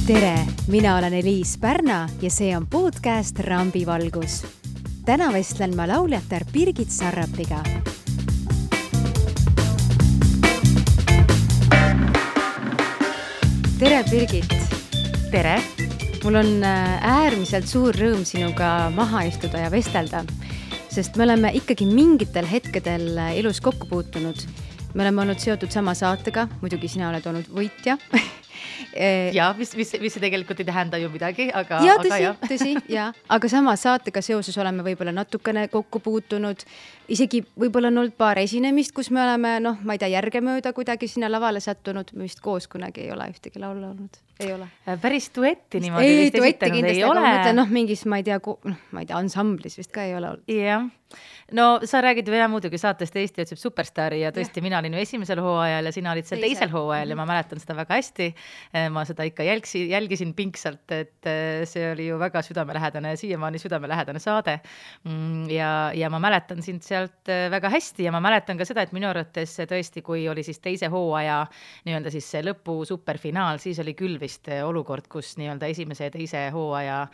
Tere, mina olen Eliis Pärna ja see on podcast Rambivalgus. Täna vestlen ma lauljatar Birgit Sarrapiga. Tere, Birgit! Tere! Mul on äärmiselt suur rõõm sinuga maha istuda ja vestelda, sest me oleme ikkagi mingitel hetkedel elus kokku puutunud. Me oleme olnud seotud sama saatega, muidugi sina oled olnud võitja. Ja, mis see tegelikult ei tähenda ju midagi, aga tõsi, aga sama saatega seoses oleme võib-olla natukene kokku puutunud. Isegi võib-olla on olnud paar esinemist, kus me oleme, ma ei tea, järgemööda kuidagi sinna lavale sattunud. Me vist koos kunagi ei ole ühtegi laulu olnud. Ei ole. Päris duetti niimoodi vist esitanud ei ole. Mõtlen, mingis, ma ei tea, ansamblis vist ka ei ole olnud. Jah. No sa räägid veel muidugi saatest Eesti otsib superstaari ja tõesti mina olin ju esimesel hooajal ja sina olid seal teisel hooajal ja ma mäletan seda väga hästi. Ma seda ikka jälgisin pingsalt, et see oli ju väga südamelähedane, siiamaani südamelähedane saade. Ja ma mäletan sind sealt väga hästi ja ma mäletan ka seda, et minu arvates tõesti, kui oli siis teise hooaja nii-öelda siis see lõpu superfinaal, siis oli küll vist olukord, kus nii-öelda esimese ja teise hooaja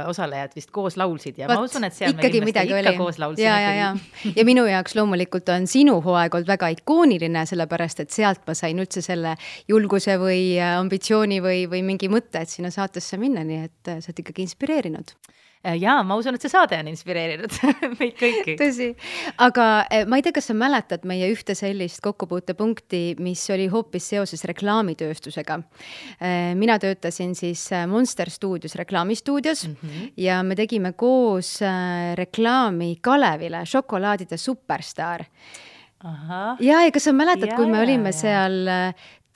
osalejad vist koos laulsid ja ma usun, et seal me kindlasti ikka koos laulsid. Ja minu jaoks loomulikult on sinu hooaeg olnud väga ikooniline, sellepärast, et sealt ma sain üldse selle julguse või ambitsiooni või mingi mõtte, et sinna saatesse minna, nii et sa oled ikkagi inspireerinud. Jaa, ma usun, et see saade on inspireerinud meid kõiki. Tõsi, aga ma ei tea, kas sa mäletad meie ühte sellist kokkupuutepunkti, mis oli hoopis seoses reklaamitööstusega. Mina töötasin siis Monster Studios, reklaamistuudios ja me tegime koos reklaami Kalevile, šokolaadide superstaar. Ja kas sa mäletad, kui me olime seal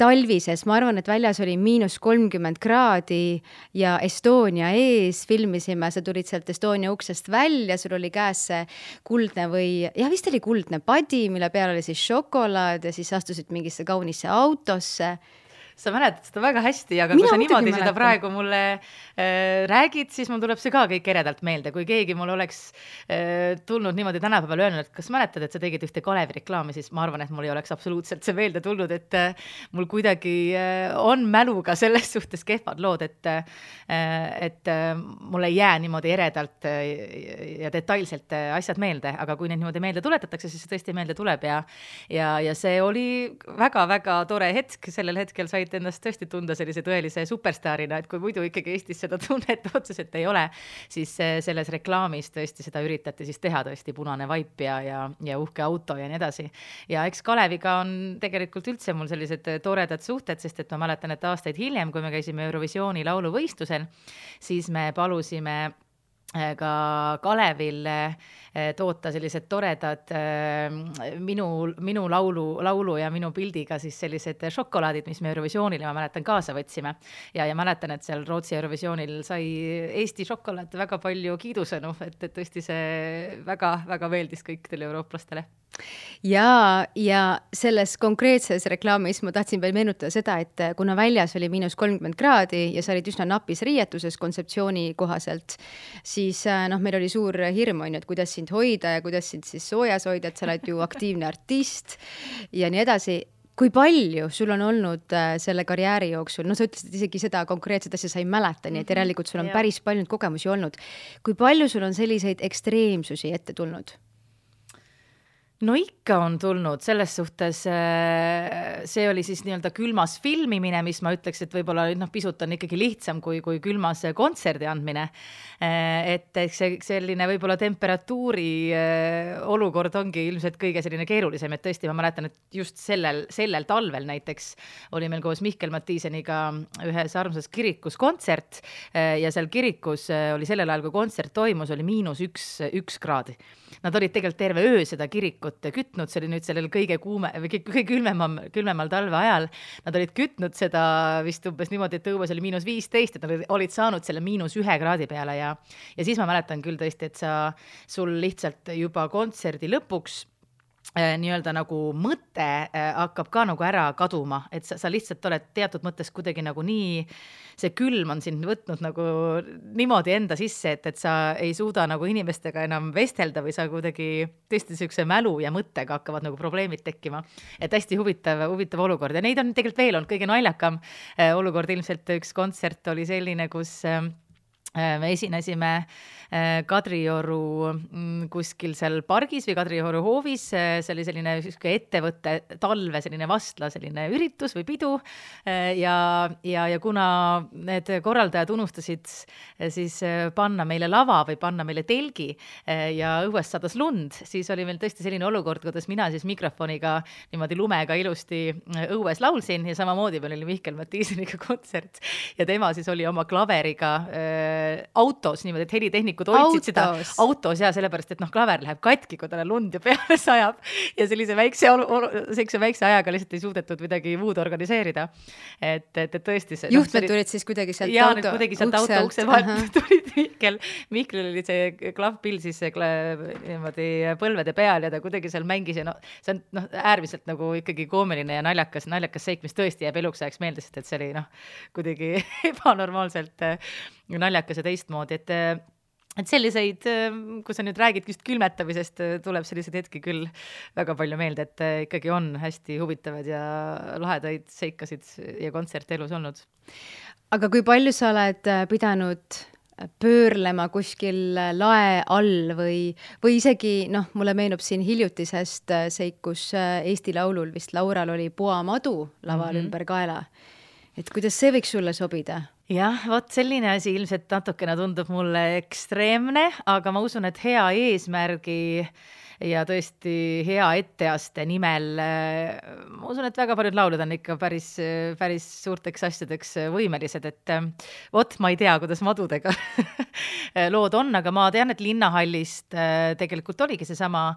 talvises, ma arvan, et väljas oli -30 kraadi ja Estonia ees filmisime, sa tulid sealt Estonia uksest välja, sul oli käes see kuldne vist oli kuldne padi, mille peal oli siis šokolaad ja siis astusid mingisse kaunisse autosse. Sa mäletad seda väga hästi, aga kui sa niimoodi seda praegu mulle räägid, siis mul tuleb see ka kõik eredalt meelde. Kui keegi mul oleks tulnud niimoodi tänapäeval öelnud, et kas mäletad, et sa tegid ühte Kalevi reklaami, siis ma arvan, et mul ei oleks absoluutselt see meelde tulnud, et mul kuidagi on mäluga selles suhtes kehvad lood, et mul ei jää niimoodi eredalt ja detailselt asjad meelde, aga kui neid niimoodi meelde tuletatakse, siis see tõesti meelde tuleb ja see oli väga-väga tore hetk, sellel hetkel said endast tõesti tunda sellise tõelise superstaarina, et kui muidu ikkagi Eestis seda tunnet otseselt ei ole, siis selles reklaamis tõesti seda üritati siis teha tõesti punane vaip ja uhke auto ja nii edasi. Ja eks Kaleviga on tegelikult üldse mul sellised toredad suhted, sest et ma mäletan, et aastaid hiljem, kui me käisime Eurovisiooni lauluvõistlusel, siis me palusime ka Kalevil toota sellised toredad minu laulu ja minu pildiga siis sellised šokolaadid, mis me Eurovisioonile, ma mäletan, kaasa võtsime. Ja mäletan, et seal Rootsi Eurovisioonil sai Eesti šokolaad väga palju kiidusõnu, et tõesti see väga-väga meeldis kõikidele eurooplastele. Ja selles konkreetses reklaamis ma tahtsin veel meenutada seda, et kuna väljas oli -30 kraadi ja sa olid üsna napis riietuses kontseptsiooni kohaselt, siis meil oli suur hirm, et kuidas sind hoida ja kuidas sind siis soojas hoida, et sa oled ju aktiivne artist ja nii edasi. Kui palju sul on olnud selle karjääri jooksul, sa ütlesid isegi seda konkreetset asja sa ei mäleta, nii et järelikult sul on päris palju kogemusi olnud. Kui palju sul on selliseid ekstreemsusi ette tulnud? No ikka on tulnud, selles suhtes see oli siis nii-öelda külmas filmimine, mis ma ütleks, et võib-olla pisut on ikkagi lihtsam kui külmas kontserdi andmine. Et see selline võib-olla temperatuuri olukord ongi ilmselt kõige selline keerulisem, et tõesti ma mäletan, et just sellel talvel näiteks oli meil koos Mihkel Mattiiseniga ühes armsas kirikus kontsert ja seal kirikus oli sellel ajal, kui kontsert toimus, oli -1 kraadi. Nad olid tegelikult terve öö seda kirikut kütnud, see oli nüüd sellel kõige külmemal talve ajal. Nad olid kütnud seda vist umbes niimoodi, et õues oli -15, et nad olid saanud selle -1 kraadi peale ja siis ma mäletan küll tõesti, et sul lihtsalt juba kontserdi lõpuks nii-öelda nagu mõte hakkab ka nagu ära kaduma, et sa lihtsalt oled teatud mõttes kuidagi nagu nii, see külm on sind võtnud nagu niimoodi enda sisse, et sa ei suuda nagu inimestega enam vestelda või sa kuidagi tõesti niisuguse mälu ja mõttega hakkavad nagu probleemid tekkima. Et hästi huvitav olukord ja neid on tegelikult veel olnud kõige naljakam olukord. Ilmselt üks kontsert oli selline, kus me esinesime Kadrioru kuskil seal pargis või Kadrioru hoovis, see oli selline ettevõtte talve selline vastla selline üritus või pidu ja kuna need korraldajad unustasid siis panna meile lava või panna meile telgi ja õuest sadas lund, siis oli meil tõesti selline olukord, kuidas mina siis mikrofoniga niimoodi lumega ilusti õues laulsin ja samamoodi meil oli Mihkel Mattiiseniga kontsert ja tema siis oli oma klaveriga autos niimoodi, et helitehnikud hoidsid seda autos ja sellepärast, et klaver läheb katki, kui talle lund ja peale sajab ja sellise väikse ajaga lihtsalt ei suudetud midagi muud organiseerida. Et tõesti see... Juhtmed tulid siis kuidagi sealt auto ukse vahelt tulid Mihkel oli see klavpill siis niimoodi põlvede peal ja ta kuidagi seal mängis ja see on äärmiselt nagu ikkagi koomiline ja naljakas seik, mis tõesti jääb eluks ajaks meelde, sest et see oli kuidagi ebanormaalselt naljakas ja teistmoodi, et selliseid, kui sa nüüd räägid just külmetamisest, tuleb selliseid hetki küll väga palju meelde, et ikkagi on hästi huvitavad ja lahedaid seikasid ja kontserte elus olnud. Aga kui palju sa oled pidanud pöörlema kuskil lae all või isegi, mulle meenub siin hiljutisest seikus Eesti Laulul vist Laural oli puamadu laval ümber kaela. Et kuidas see võiks sulle sobida? Jah, vot selline asi ilmselt natukene tundub mulle ekstreemne, aga ma usun, et hea eesmärgi ja tõesti hea etteaste nimel, ma usun, et väga paljud laulud on ikka päris suurteks asjadeks võimelised, et vot ma ei tea, kuidas madudega lood on, aga ma tean, et Linnahallist tegelikult oligi seesama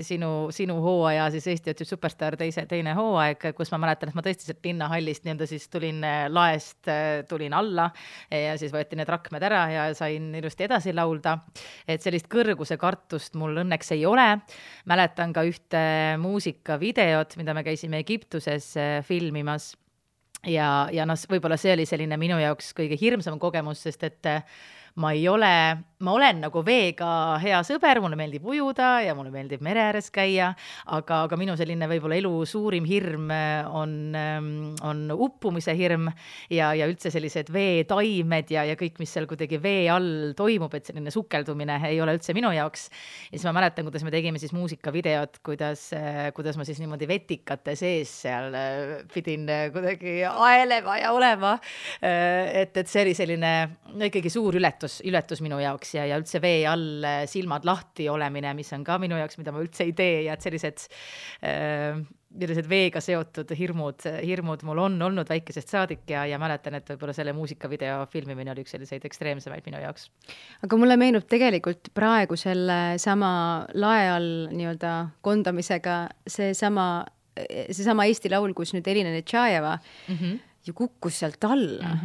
sinu hooaja, siis Eesti otsib superstar teine hooaeg, kus ma mäletan, et ma tõesti sealt Linnahallist nii-öelda siis tulin laest, tulin alla ja siis võeti need rakmed ära ja sain ilusti edasi laulda, et sellist kõrguse kartust mul õnneks ei ole. Mäletan ka ühte muusikavideot, mida me käisime Egiptuses filmimas ja võib-olla see oli selline minu jaoks kõige hirmsam kogemus, sest et ma olen nagu veega hea sõber, mulle meeldib ujuda ja mulle meeldib mere ääres käia, aga minu selline võib-olla elu suurim hirm on uppumise hirm ja üldse sellised veetaimed ja kõik, mis seal kuidagi vee all toimub, et selline sukeldumine ei ole üldse minu jaoks. Ja siis ma mäletan, kuidas me tegime siis muusikavideot, kuidas ma siis niimoodi vetikate sees seal pidin kuidagi aelema ja olema, et see oli selline ikkagi suur ületus minu jaoks ja üldse vee all silmad lahti olemine, mis on ka minu jaoks, mida ma üldse ei tee ja et sellised veega seotud hirmud mul on olnud väikesest saadik ja mäletan, et võib-olla selle muusikavideo filmimine oli üks selliseid ekstreemsemaid minu jaoks. Aga mulle meenub tegelikult praegu selle sama lae all nii-öelda kondamisega seesama Eesti Laul, kus nüüd Elina Netšajeva ju kukkus sealt alla.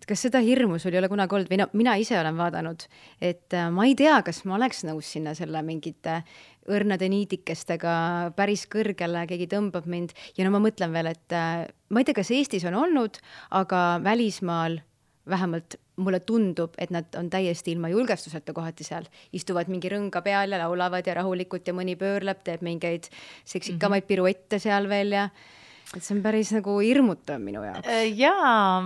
Kas seda hirmu sul ei ole kunagi olnud? Või mina ise olen vaadanud, et ma ei tea, kas ma oleks nõus sinna selle mingite õrnade niidikestega päris kõrgele, keegi tõmbab mind. Ja ma mõtlen veel, et ma ei tea, kas Eestis on olnud, aga välismaal vähemalt mulle tundub, et nad on täiesti ilma julgestuseta kohati seal. Istuvad mingi rõnga peal ja laulavad ja rahulikult ja mõni pöörleb, teeb mingeid seksikamaid piruette seal veel ja et see on päris nagu hirmutav minu jaoks. Jaa,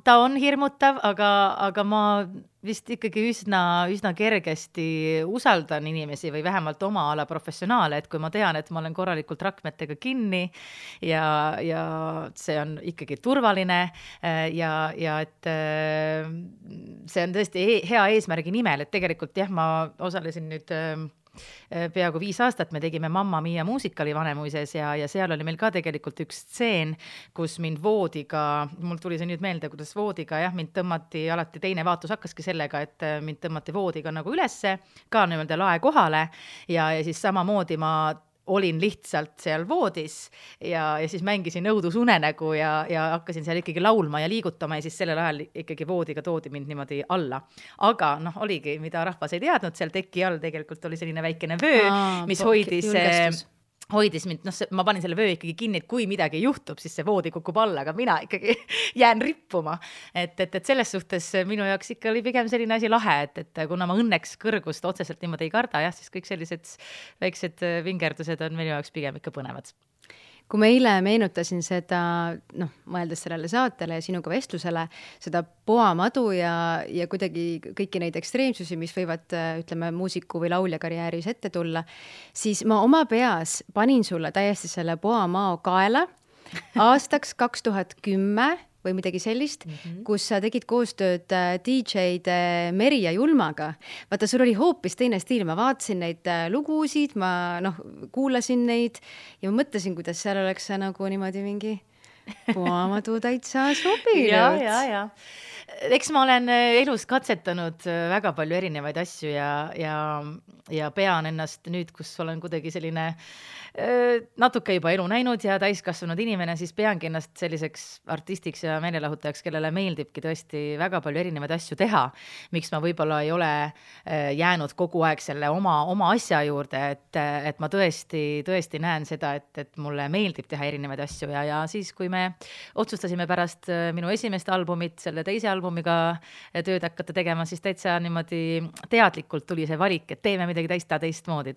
ta on hirmutav, aga ma vist ikkagi üsna kergesti usaldan inimesi või vähemalt oma ala professionaale, et kui ma tean, et ma olen korralikult rakmetega kinni ja see on ikkagi turvaline ja et see on tõesti hea eesmärgi nimel, et tegelikult jah, ma osalesin nüüd peaaegu 5 aastat me tegime Mamma Mia muusikali Vanemuises ja seal oli meil ka tegelikult üks stseen, kus mind voodiga, mul tuli see nüüd meelde, kuidas voodiga, mind tõmmati alati, teine vaatus hakkaski sellega, et mind tõmmati voodiga nagu ülesse, ka niimoodi lae kohale ja siis samamoodi ma olin lihtsalt seal voodis ja siis mängisin õudusunenägu ja hakkasin seal ikkagi laulma ja liigutama ja siis sellel ajal ikkagi voodiga toodi mind niimoodi alla. Aga oligi, mida rahvas ei teadnud, seal teki all tegelikult oli selline väikene vöö, mis hoidis mind, ma panin selle vöö ikkagi kinni, et kui midagi juhtub, siis see voodi kukub alla, aga mina ikkagi jään rippuma. Et selles suhtes minu jaoks ikka oli pigem selline asi lahe, et kuna ma õnneks kõrgust otseselt niimoodi ei karda, jah, siis kõik sellised väiksed vingerdused on minu jaoks pigem ikka põnevad. Kui ma eile meenutasin seda, mõeldes sellele saatele ja sinuga vestlusele, seda poamadu ja kuidagi kõiki neid ekstreemsusi, mis võivad, ütleme, muusiku või laulja karjääris ette tulla, siis ma oma peas panin sulle täiesti selle poamao kaela aastaks 2010 või midagi sellist, kus sa tegid koostööd DJ-d Meri ja Julmaga. Vaata, sul oli hoopis teine stiil, ma vaatasin neid lugusid, ma kuulasin neid ja ma mõtlesin, kuidas seal oleks see nagu niimoodi mingi poamadu täitsa sobinud. Ja. Eks ma olen elus katsetanud väga palju erinevaid asju ja pean ennast nüüd, kus olen kuidagi selline natuke juba elu näinud ja täiskasvanud inimene, siis peangi ennast selliseks artistiks ja meelelahutajaks, kellele meeldibki tõesti väga palju erinevaid asju teha. Miks ma võib-olla ei ole jäänud kogu aeg selle oma asja juurde, et ma tõesti näen seda, et mulle meeldib teha erinevaid asju ja siis, kui me otsustasime pärast minu esimest albumit, selle teise albumiga tööd hakata tegema, siis täitsa niimoodi teadlikult tuli see valik, et teeme midagi täitsa teistmoodi.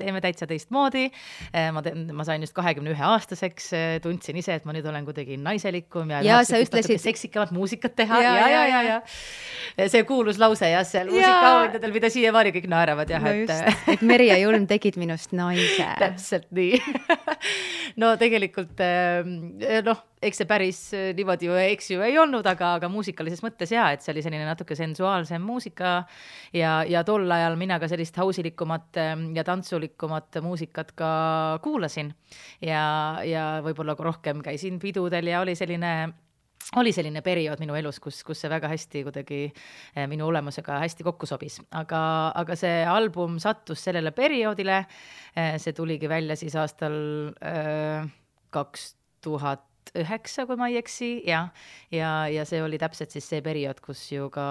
Ma sain just 21 aastaseks, tundsin ise, et ma nüüd olen kuidagi naiselikum ja sa ütlesid seksikamat muusikat teha. Ja. See kuulus lause seal muusikaauhindadel, mida siiamaani kõik naeravad. Et Meri ja Julm tegid minust naise. Täpselt nii. No tegelikult, eks see päris niimoodi ju ei olnud, aga muusikalises mõttes et see oli selline natuke sensuaalsem muusika ja tol ajal mina ka sellist hausilikumat ja tantsulikumat muusikat ka kuulasin ja võib-olla rohkem käisin pidudel ja oli selline periood minu elus, kus see väga hästi kuidagi minu olemusega hästi kokku sobis. Aga see album sattus sellele perioodile, see tuligi välja siis aastal 2009, kui ma ei eksi, ja see oli täpselt siis see periood, kus ju ka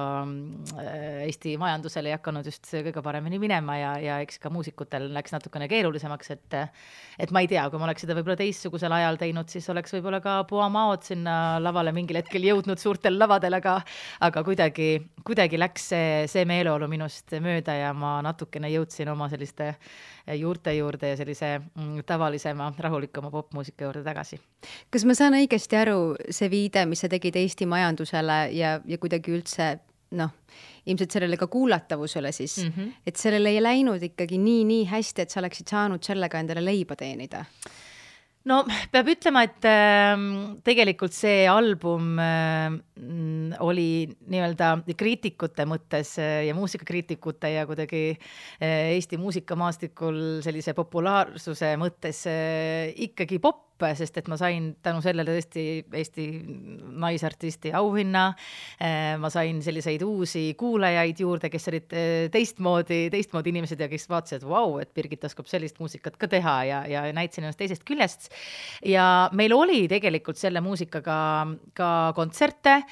Eesti majandusele ei hakanud just kõige paremini minema ja eks ka muusikutel läks natukene keerulisemaks, et ma ei tea, kui ma oleks seda võib-olla teistsugusel ajal teinud, siis oleks võib-olla ka poamaod sinna lavale mingil hetkel jõudnud suurtel lavadel, aga kuidagi läks see meeleolu minust mööda ja ma natukene jõudsin oma selliste juurte juurde ja sellise tavalisema, rahulikuma popmuusika juurde tagasi. Kas ma saan õigesti aru, see viide, mis sa tegid Eesti majandusele ja kuidagi üldse, ilmselt sellele ka kuulatavusele siis, et sellele ei läinud ikkagi nii hästi, et sa oleksid saanud sellega endale leiba teenida? No peab ütlema, et tegelikult see album oli nii-öelda kriitikute mõttes ja muusikakriitikute ja kuidagi Eesti muusikamaastikul sellise populaarsuse mõttes ikkagi pop, sest et ma sain tänu sellele tõesti Eesti naisartisti auhinna, ma sain selliseid uusi kuulajaid juurde, kes olid teistmoodi inimesed ja kes vaatasid, et Birgit oskab sellist muusikat ka teha ja näitasin ennast teisest küljest. Ja meil oli tegelikult selle muusikaga ka kontserte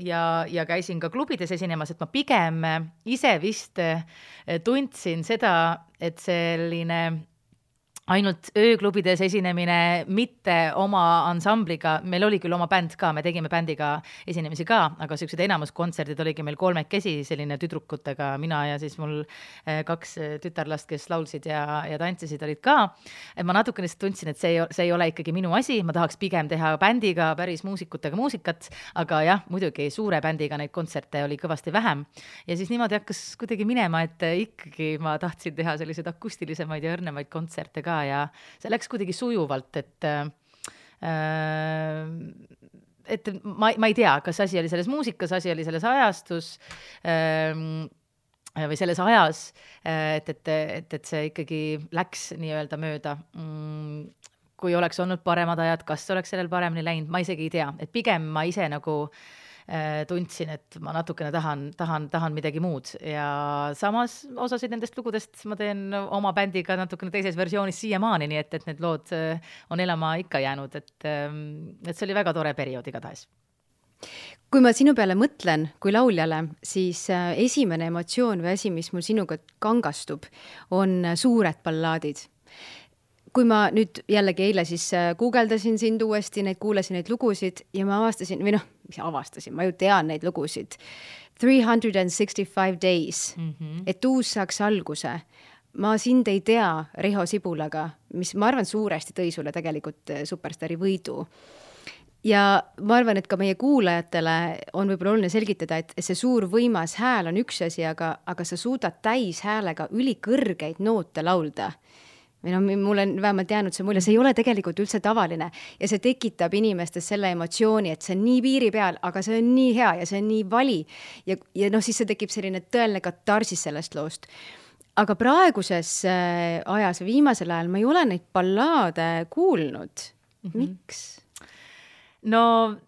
ja käisin ka klubides esinemas, et ma pigem ise vist tundsin seda, et selline ainult ööklubides esinemine, mitte oma ansambliga, meil oli küll oma bänd ka, me tegime bändiga esinemisi ka, aga sellised enamus kontserdid oligi meil 3 selline tüdrukutega, mina ja siis mul 2 tütarlast, kes laulsid ja tantsisid, olid ka. Et ma natukene tundsin, et see ei ole ikkagi minu asi, ma tahaks pigem teha bändiga päris muusikutega muusikat, aga jah, muidugi suure bändiga neid kontserte oli kõvasti vähem. Ja siis niimoodi hakkas kuidagi minema, et ikkagi ma tahtsin teha selliseid akustilisemaid ja õrnemaid kontserte ka ja see läks kuidagi sujuvalt, et ma ei tea, kas asi oli selles muusikas, asi oli selles ajastus või selles ajas, et see ikkagi läks nii-öelda mööda. Kui oleks olnud paremad ajad, kas oleks sellel paremini läinud, ma isegi ei tea, et pigem ma ise nagu tundsin, et ma natukene tahan midagi muud ja samas osasid nendest lugudest ma teen oma bändiga natukene teises versioonis siiamaani, nii et need lood on elama ikka jäänud, et see oli väga tore periood igatahes. Kui ma sinu peale mõtlen kui lauljale, siis esimene emotsioon või asi, mis mul sinuga kangastub, on suured ballaadid. Kui ma nüüd jällegi eile siis guugeldasin sind uuesti, kuulasin neid lugusid ja ma avastasin, ma ju tean neid lugusid. 365 Days, et uus saaks alguse. Ma sind ei tea Riho Sibulaga, mis ma arvan suuresti tõi sulle tegelikult Superstaari võidu. Ja ma arvan, et ka meie kuulajatele on võib-olla oluline selgitada, et see suur võimas hääl on üks asi, aga sa suudad täis häälega ülikõrgeid noote laulda. Mul on vähemalt jäänud see mulje, see ei ole tegelikult üldse tavaline ja see tekitab inimestes selle emotsiooni, et see on nii piiri peal, aga see on nii hea ja see on nii vali ja siis see tekib selline tõeline katarsis sellest loost. Aga praeguses ajas, viimasel ajal ma ei ole neid ballaade kuulnud. Miks? No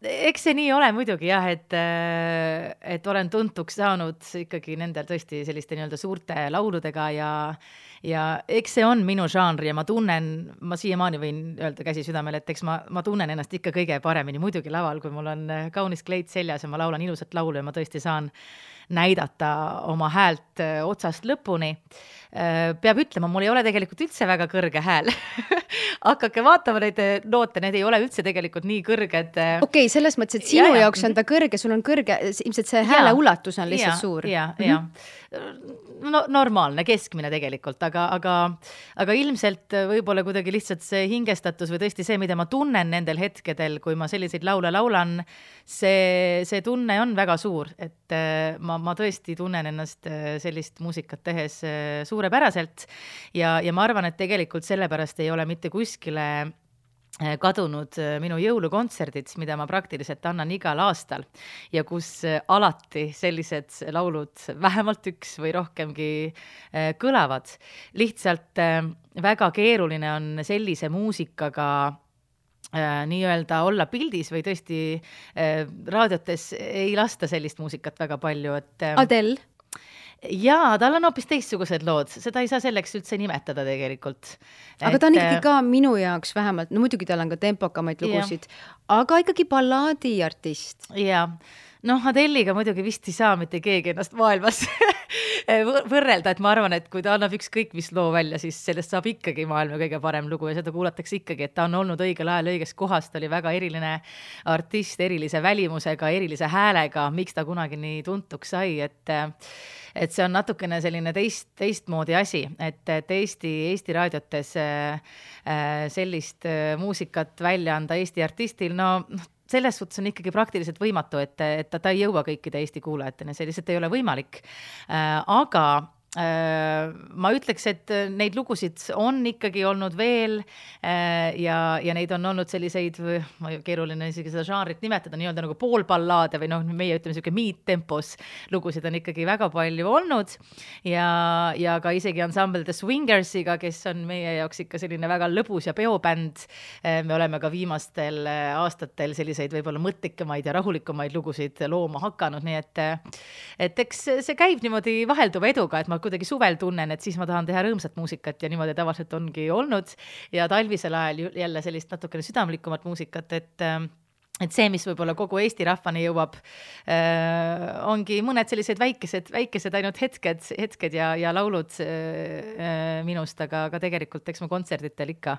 eks see nii ole muidugi jah, et olen tuntuks saanud ikkagi nendel tõesti selliste nii-öelda suurte lauludega ja eks see on minu žanr ja ma siiamaani võin öelda käsi südamel, et eks ma tunnen ennast ikka kõige paremini muidugi laval, kui mul on kaunis kleit seljas ja ma laulan ilusat laulu ja ma tõesti saan näidata oma häält otsast lõpuni. Peab ütlema, mul ei ole tegelikult üldse väga kõrge hääl. Hakake vaatama neid noote, need ei ole üldse tegelikult nii kõrged. Okei, selles mõttes, et sinu jaoks on ta kõrge, sul on kõrge, ilmselt see hääle ulatus on lihtsalt suur. Ja. No, normaalne, keskmine tegelikult, aga ilmselt võib-olla kuidagi lihtsalt see hingestatus või tõesti see, mida ma tunnen nendel hetkedel, kui ma selliseid laule laulan, see tunne on väga suur, et ma tõesti tunnen ennast sellist muusikat tehes suurepäraselt ja ma arvan, et tegelikult sellepärast ei ole mitte kuskile kadunud minu jõulukontserdid, mida ma praktiliselt annan igal aastal ja kus alati sellised laulud vähemalt üks või rohkemgi kõlavad. Lihtsalt väga keeruline on sellise muusikaga nii-öelda olla pildis või tõesti raadiotes ei lasta sellist muusikat väga palju. Adele? Jaa, tal on hoopis teistsugused lood, seda ei saa selleks üldse nimetada tegelikult. Aga ta on ikkagi ka minu jaoks vähemalt, no muidugi tal on ka tempokamaid lugusid, aga ikkagi ballaadi artist. Jaa, Adeliga muidugi vist ei saa mitte keegi ennast maailmas võrrelda, et ma arvan, et kui ta annab ükskõik mis loo välja, siis sellest saab ikkagi maailma kõige parem lugu ja seda kuulatakse ikkagi, et ta on olnud õigel ajal õiges kohas, ta oli väga eriline artist, erilise välimusega, erilise häälega, miks ta kunagi nii tuntuks sai, et see on natukene selline teistmoodi asi, et Eesti raadiotes sellist muusikat välja anda Eesti artistil, selles suhtes on ikkagi praktiliselt võimatu, et ta ei jõua kõikide Eesti kuulajateni, see lihtsalt ei ole võimalik. Aga ma ütleks, et neid lugusid on ikkagi olnud veel ja neid on olnud selliseid, keeruline isegi seda žanrit nimetada, nii-öelda nagu poolballaade või meie ütleme selline mid-tempos lugusid on ikkagi väga palju olnud ja ka isegi ensemble The Swingersiga, kes on meie jaoks ikka selline väga lõbus ja peobänd. Me oleme ka viimastel aastatel selliseid võib-olla mõtlikamaid ja rahulikumaid lugusid looma hakanud, nii et eks see käib niimoodi vahelduva eduga, et ma kuidagi suvel tunnen, et siis ma tahan teha rõõmsat muusikat ja niimoodi tavaliselt ongi olnud ja talvisel ajal jälle sellist natukene südamlikumat muusikat, et see, mis võib-olla kogu Eesti rahvani jõuab, ongi mõned sellised väikesed ainult hetked ja laulud minust, aga tegelikult eks ma kontserditel ikka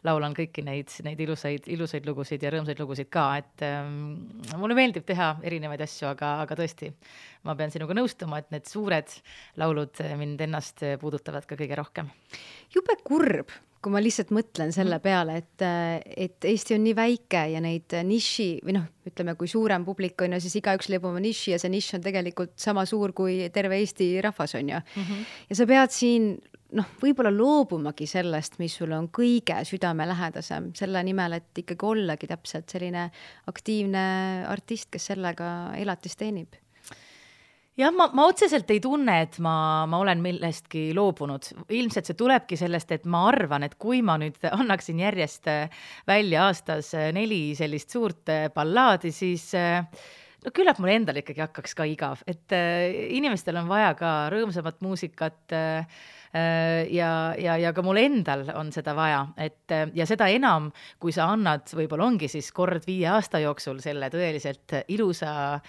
laulan kõiki neid ilusaid lugusid ja rõõmsaid lugusid ka, et mulle meeldib teha erinevaid asju, aga tõesti, ma pean sinuga nõustuma, et need suured laulud mind ennast puudutavad ka kõige rohkem. Jube kurb, kui ma lihtsalt mõtlen selle peale, et Eesti on nii väike ja neid niši, või ütleme, kui suurem publik on ja siis igaüks leiab oma niši ja see niš on tegelikult sama suur kui terve Eesti rahvas on ja. Ja sa pead siin võib-olla loobumagi sellest, mis sul on kõige südamelähedasem, selle nimel, et ikkagi ollagi täpselt selline aktiivne artist, kes sellega elatist teenib. Jah, ma otseselt ei tunne, et ma olen millestki loobunud. Ilmselt see tulebki sellest, et ma arvan, et kui ma nüüd annaksin järjest välja aastas 4 sellist suurt ballaadi, siis no küllap mul endal ikkagi hakkaks ka igav, et inimestel on vaja ka rõõmsamat muusikat ja ka mul endal on seda vaja, et ja seda enam, kui sa annad, võib-olla ongi siis kord 5 aasta jooksul selle tõeliselt ilusa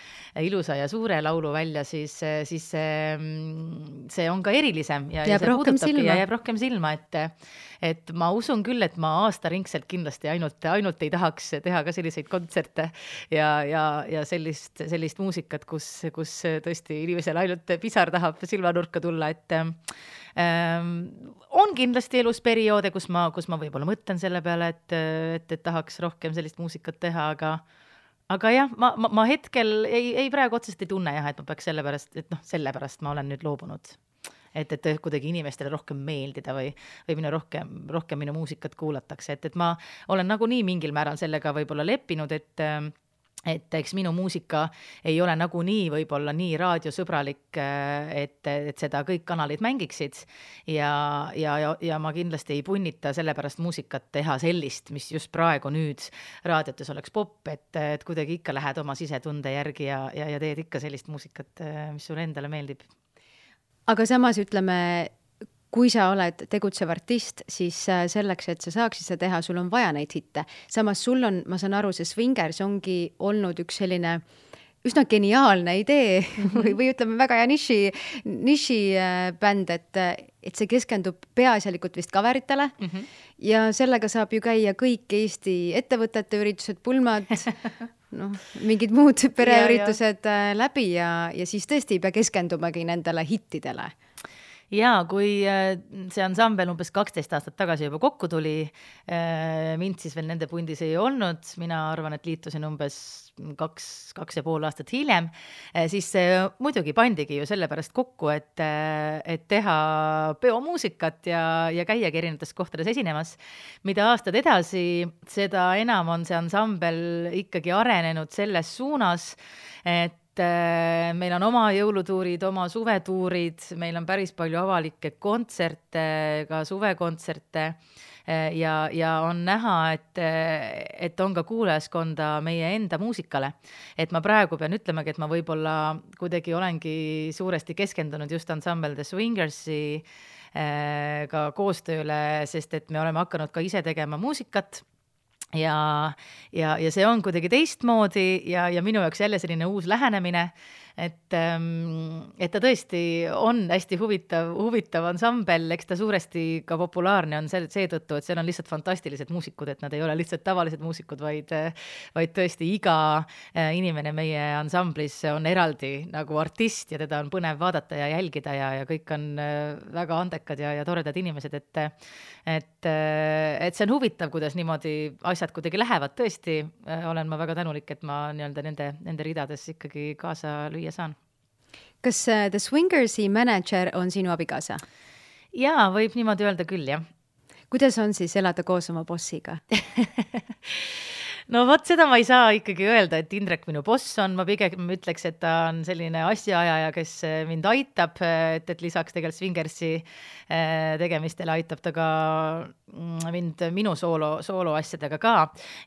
ja suure laulu välja, siis see on ka erilisem ja jääb rohkem silma, et ma usun küll, et ma aastaringselt kindlasti ainult ei tahaks teha ka selliseid kontserte ja sellist muusikat, kus tõesti inimesel ainult pisar tahab silmanurka tulla, et on kindlasti elus perioode, kus ma võib-olla mõtlen selle peale, et tahaks rohkem sellist muusikat teha, aga jah, ma hetkel ei praegu otseselt ei tunne jah, et ma peaks sellepärast ma olen nüüd loobunud. Et kuidagi inimestele rohkem meeldida või rohkem minu muusikat kuulatakse, et ma olen nagunii mingil määral sellega võib-olla leppinud, et eks minu muusika ei ole nagunii võib-olla nii raadiosõbralik, et seda kõik kanalid mängiksid ja ma kindlasti ei punnita sellepärast muusikat teha sellist, mis just praegu nüüd raadiotes oleks pop, et kuidagi ikka lähed oma sisetunde järgi ja teed ikka sellist muusikat, mis sulle endale meeldib. Aga samas ütleme, kui sa oled tegutsev artist, siis selleks, et sa saaksid seda teha, sul on vaja neid hitte. Samas sul on, ma saan aru, see Swingers ongi olnud üks selline üsna geniaalne idee või ütleme väga hea niši bänd, et see keskendub peaasjalikult vist kaveritele ja sellega saab ju käia kõik Eesti ettevõtete üritused, pulmad, mingid muud pereüritused läbi ja siis tõesti ei pea keskendumagi nendele hittidele. Jaa, kui see ansambel umbes 12 aastat tagasi juba kokku tuli, mind siis veel nende pundis ei olnud, mina arvan, et liitusin umbes 2,5 aastat hiljem, siis muidugi pandigi ju sellepärast kokku, et teha peomuusikat ja käiagi erinevates kohtades esinemas. Mida aastad edasi, seda enam on see ansambel ikkagi arenenud selles suunas, et meil on oma jõulutuurid, oma suvetuurid, meil on päris palju avalikke kontserte, ka suvekontserte ja on näha, et on ka kuulajaskonda meie enda muusikale. Et ma praegu pean ütlemagi, et ma võib-olla kuidagi olengi suuresti keskendunud just ansambel The Swingersi ka koostööle, sest et me oleme hakanud ka ise tegema muusikat. Ja see on kuidagi teistmoodi ja minu jaoks jälle selline uus lähenemine, et ta tõesti on hästi huvitav ansambel, eks ta suuresti ka populaarne on seetõttu, et seal on lihtsalt fantastilised muusikud, et nad ei ole lihtsalt tavalised muusikud, vaid tõesti iga inimene meie ansamblis on eraldi nagu artist ja teda on põnev vaadata ja jälgida ja kõik on väga andekad ja toredad inimesed, et see on huvitav, kuidas niimoodi asjad kuidagi lähevad, tõesti olen ma väga tänulik, et ma nende ridades ikkagi kaasa lüüa saan. Kas The Swingersi manager on sinu abikaasa? Jaa, võib niimoodi öelda küll, jah. Kuidas on siis elada koos oma bossiga? No vot, seda ma ei saa ikkagi öelda, et Indrek minu boss on, ma pigem ütleks, et ta on selline asjaajaja, kes mind aitab, et lisaks tegelikult Swingersi tegemistele aitab ta ka mind minu soolo asjadega ka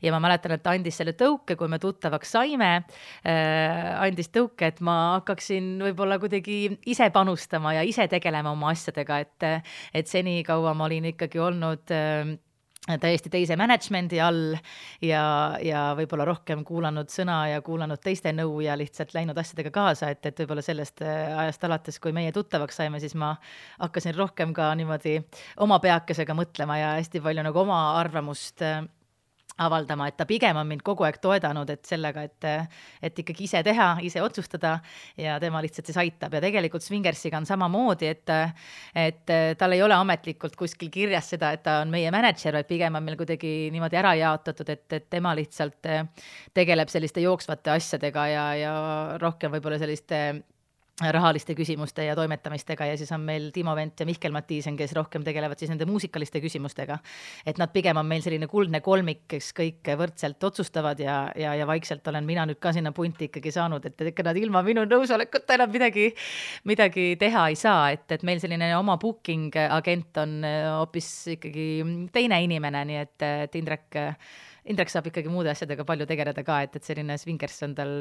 ja ma mäletan, et ta andis selle tõuke, kui me tuttavaks saime, andis tõuke, et ma hakkaksin võib-olla kuidagi ise panustama ja ise tegelema oma asjadega, et seni kaua ma olin ikkagi olnud täiesti teise managemendi all ja võib-olla rohkem kuulanud sõna ja kuulanud teiste nõu ja lihtsalt läinud asjadega kaasa, et võib-olla sellest ajast alates, kui meie tuttavaks saime, siis ma hakkasin rohkem ka niimoodi oma peakesega mõtlema ja hästi palju nagu oma arvamust avaldama, et ta pigem on mind kogu aeg toedanud, et sellega, et ikkagi ise teha, ise otsustada ja tema lihtsalt siis aitab ja tegelikult Swingersiga on samamoodi, et tal ei ole ametlikult kuskil kirjas seda, et ta on meie manager, vaid pigem on meil kuidagi niimoodi ära jaotatud, et tema lihtsalt tegeleb selliste jooksvate asjadega ja rohkem võib-olla selliste rahaliste küsimuste ja toimetamistega ja siis on meil Timo Vent ja Mihkel Matiisen, kes rohkem tegelevad siis nende muusikaliste küsimustega. Et nad pigem on meil selline kuldne kolmik, kes kõik võrdselt otsustavad ja vaikselt olen mina nüüd ka sinna punti ikkagi saanud, et ikka nad ilma minu nõusolekuta enam midagi teha ei saa, et meil selline oma booking agent on hoopis ikkagi teine inimene, nii et Indrek saab ikkagi muude asjadega palju tegeleda ka, et selline Swingers on tal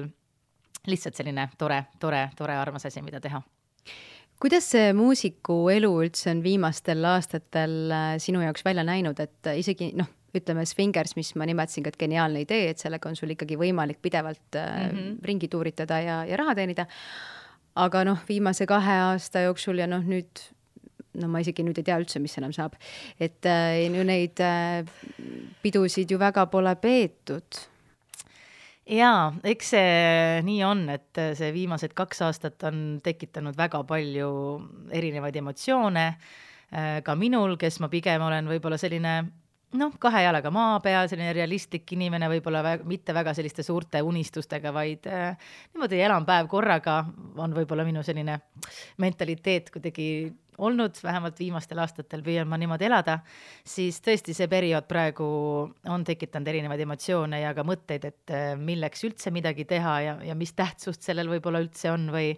lihtsalt selline tore armas asi, mida teha. Kuidas see muusiku elu üldse on viimastel aastatel sinu jaoks välja näinud, et isegi ütleme Swingers, mis ma nimetasin, et geniaalne idee, et sellega on sul ikkagi võimalik pidevalt ringi tuuritada ja raha teenida, aga viimase 2 aasta jooksul ja nüüd ma isegi nüüd ei tea üldse, mis enam saab, et neid pidusid ju väga pole peetud. Jaa, eks see nii on, et see viimased 2 aastat on tekitanud väga palju erinevaid emotsioone, ka minul, kes ma pigem olen võib-olla selline 2 jalaga maa peal, selline realistlik inimene, võib-olla mitte väga selliste suurte unistustega, vaid niimoodi elan päev korraga, on võib-olla minu selline mentaliteet kuidagi olnud, vähemalt viimastel aastatel püüan ma niimoodi elada, siis tõesti see periood praegu on tekitanud erinevaid emotsioone ja ka mõtteid, et milleks üldse midagi teha ja mis tähtsust sellel võib-olla üldse on või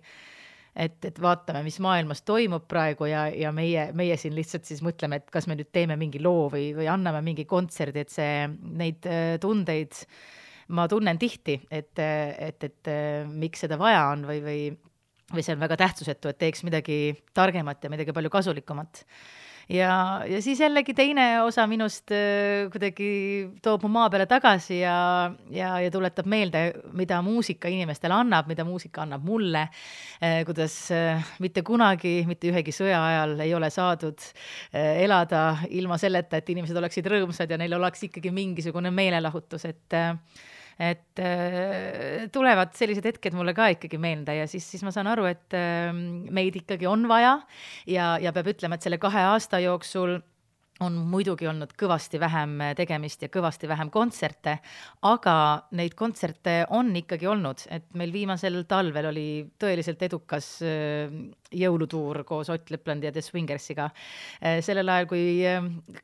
et vaatame, mis maailmas toimub praegu ja meie siin lihtsalt siis mõtleme, et kas me nüüd teeme mingi loo või anname mingi kontserdi, et neid tundeid ma tunnen tihti, et miks seda vaja on või see on väga tähtsusetu, et teeks midagi targemat ja midagi palju kasulikumat. Ja siis jällegi teine osa minust kuidagi toob mu maa peale tagasi ja tuletab meelde, mida muusika inimestele annab, mida muusika annab mulle, kuidas mitte kunagi, mitte ühegi sõja ajal ei ole saadud elada ilma selleta, et inimesed oleksid rõõmsad ja neil oleks ikkagi mingisugune meelelahutus, et tulevad sellised hetked mulle ka ikkagi meelde ja siis ma saan aru, et meid ikkagi on vaja ja peab ütlema, et selle 2 aasta jooksul on muidugi olnud kõvasti vähem tegemist ja kõvasti vähem kontserte, aga neid kontserte on ikkagi olnud, et meil viimasel talvel oli tõeliselt edukas jõulutuur koos Ott Leplandi ja The Swingersiga. Sellel ajal, kui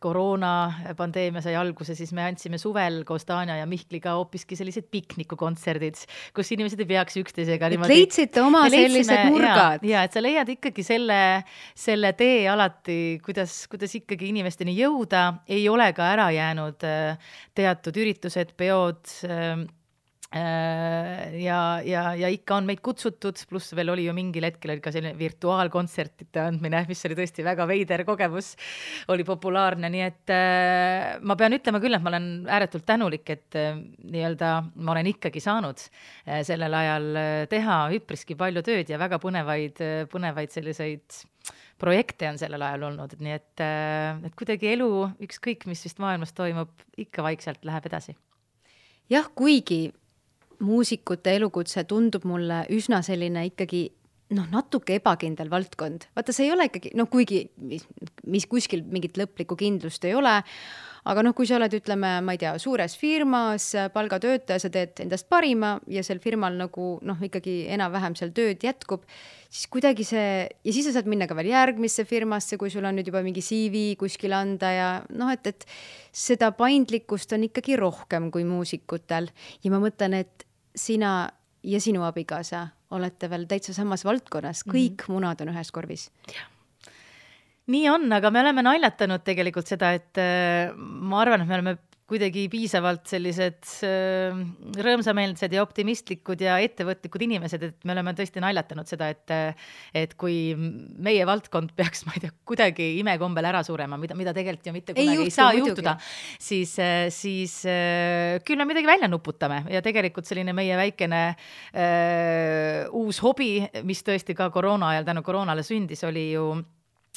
koroonapandeemia sai alguse, siis me andsime suvel koos Tanja ja Mihkliga hoopiski sellised piknikukontserdid, kus inimesed ei peaks üksteisega niimoodi. Leidsite oma sellised nurgad. Ja, et sa leiad ikkagi selle tee alati, kuidas ikkagi inimesteni jõuda, ei ole ka ära jäänud teatud üritused, peod ja ikka on meid kutsutud, pluss veel oli ju mingil hetkel ka selline virtuaalkontsertide andmine, mis oli tõesti väga veider kogemus, oli populaarne, nii et ma pean ütlema küll, et ma olen ääretult tänulik, et ma olen ikkagi saanud sellel ajal teha üpriski palju tööd ja väga põnevaid selliseid projekte on sellel ajal olnud, nii et kuidagi elu, ükskõik mis vist maailmas toimub, ikka vaikselt läheb edasi. Jah, kuigi muusikute elukutse tundub mulle üsna selline ikkagi natuke ebakindel valdkond. Vaata, see ei ole ikkagi, kuigi mis kuskil mingit lõplikku kindlust ei ole, aga kui sa oled, ütleme, ma ei tea, suures firmas, palgatöötaja, sa teed endast parima ja sel firmal ikkagi enam-vähem seal tööd jätkub, siis kuidagi see, ja siis sa saad minna ka veel järgmisse firmasse, kui sul on nüüd juba mingi CV kuskil anda ja et seda paindlikkust on ikkagi rohkem kui muusikutel. Ja ma mõtlen, et sina ja sinu abikaasa olete veel täitsa samas valdkonnas, kõik munad on ühes korvis. Nii on, aga me oleme naljatanud tegelikult seda, et ma arvan, et me oleme kuidagi piisavalt sellised rõõmsameelsed ja optimistlikud ja ettevõtlikud inimesed, et me oleme tõesti naljatanud seda, et kui meie valdkond peaks, ma ei tea, kuidagi imekombel ära surema, mida tegelikult ju mitte kunagi ei saa juhtuda, siis küll me midagi välja nuputame ja tegelikult selline meie väikene uus hobi, mis tõesti ka koroona ajal tänu koroonale sündis, oli ju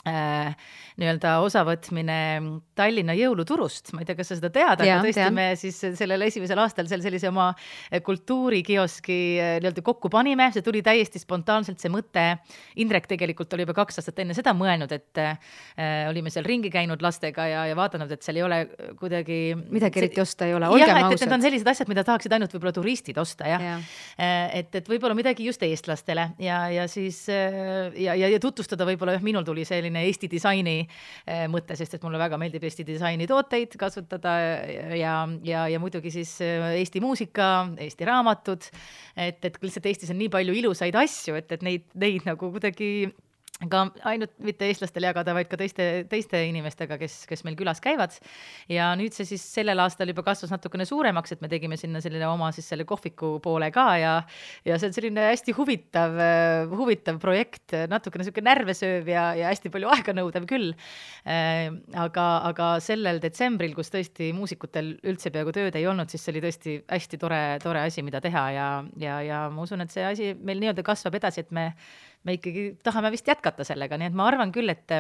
osavõtmine Tallinna jõuluturust. Ma ei tea, kas sa seda tead, aga tõesti me siis sellel esimesel aastal sellise oma kultuurikioski kokku panime. See tuli täiesti spontaanselt see mõte. Indrek tegelikult oli juba 2 aastat enne seda mõelnud, et olime seal ringi käinud lastega ja vaadanud, et seal ei ole kuidagi midagi eriti osta ei ole, olgem ausad. Et need on sellised asjad, mida tahaksid ainult võib-olla turistid osta, et võib-olla midagi just eestlastele ja siis ja tutvustada võib-olla minul tuli selline Eesti disaini mõte, sest et mulle väga meeldib Eesti disaini tooteid kasutada ja muidugi siis Eesti muusika, Eesti raamatud, et lihtsalt Eestis on nii palju ilusaid asju, et neid nagu kuidagi ka ainult mitte eestlastel jagada, vaid ka teiste inimestega, kes meil külas käivad. Ja nüüd see siis sellel aastal juba kasvas natukene suuremaks, et me tegime sinna selline oma siis selle kohviku poole ka ja see on selline hästi huvitav projekt, natukene selline närvesööv ja hästi palju aega nõudev küll. Aga sellel detsembril, kus tõesti muusikutel üldse peaaegu tööd ei olnud, siis see oli tõesti hästi tore asi, mida teha ja ma usun, et see asi meil nii-öelda kasvab edasi, et me ikkagi tahame vist jätkata sellega, nii et ma arvan küll, et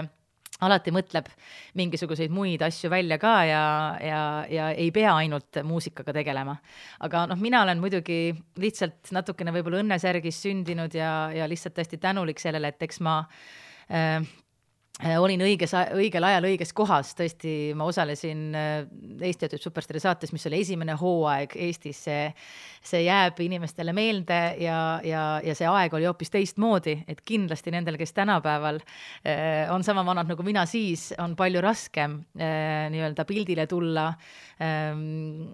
alati mõtleb mingisuguseid muid asju välja ka ja ei pea ainult muusikaga tegelema. Aga mina olen muidugi lihtsalt natukene võib-olla õnnesärgis sündinud ja lihtsalt hästi tänulik sellele, et eks ma olin õigel ajal õiges kohas, tõesti ma osalesin Eesti Töötab Superstaari saates, mis oli esimene hooaeg Eestis, see jääb inimestele meelde ja see aeg oli hoopis teistmoodi, et kindlasti nendel, kes tänapäeval on sama vanad nagu mina siis, on palju raskem nii-öelda pildile tulla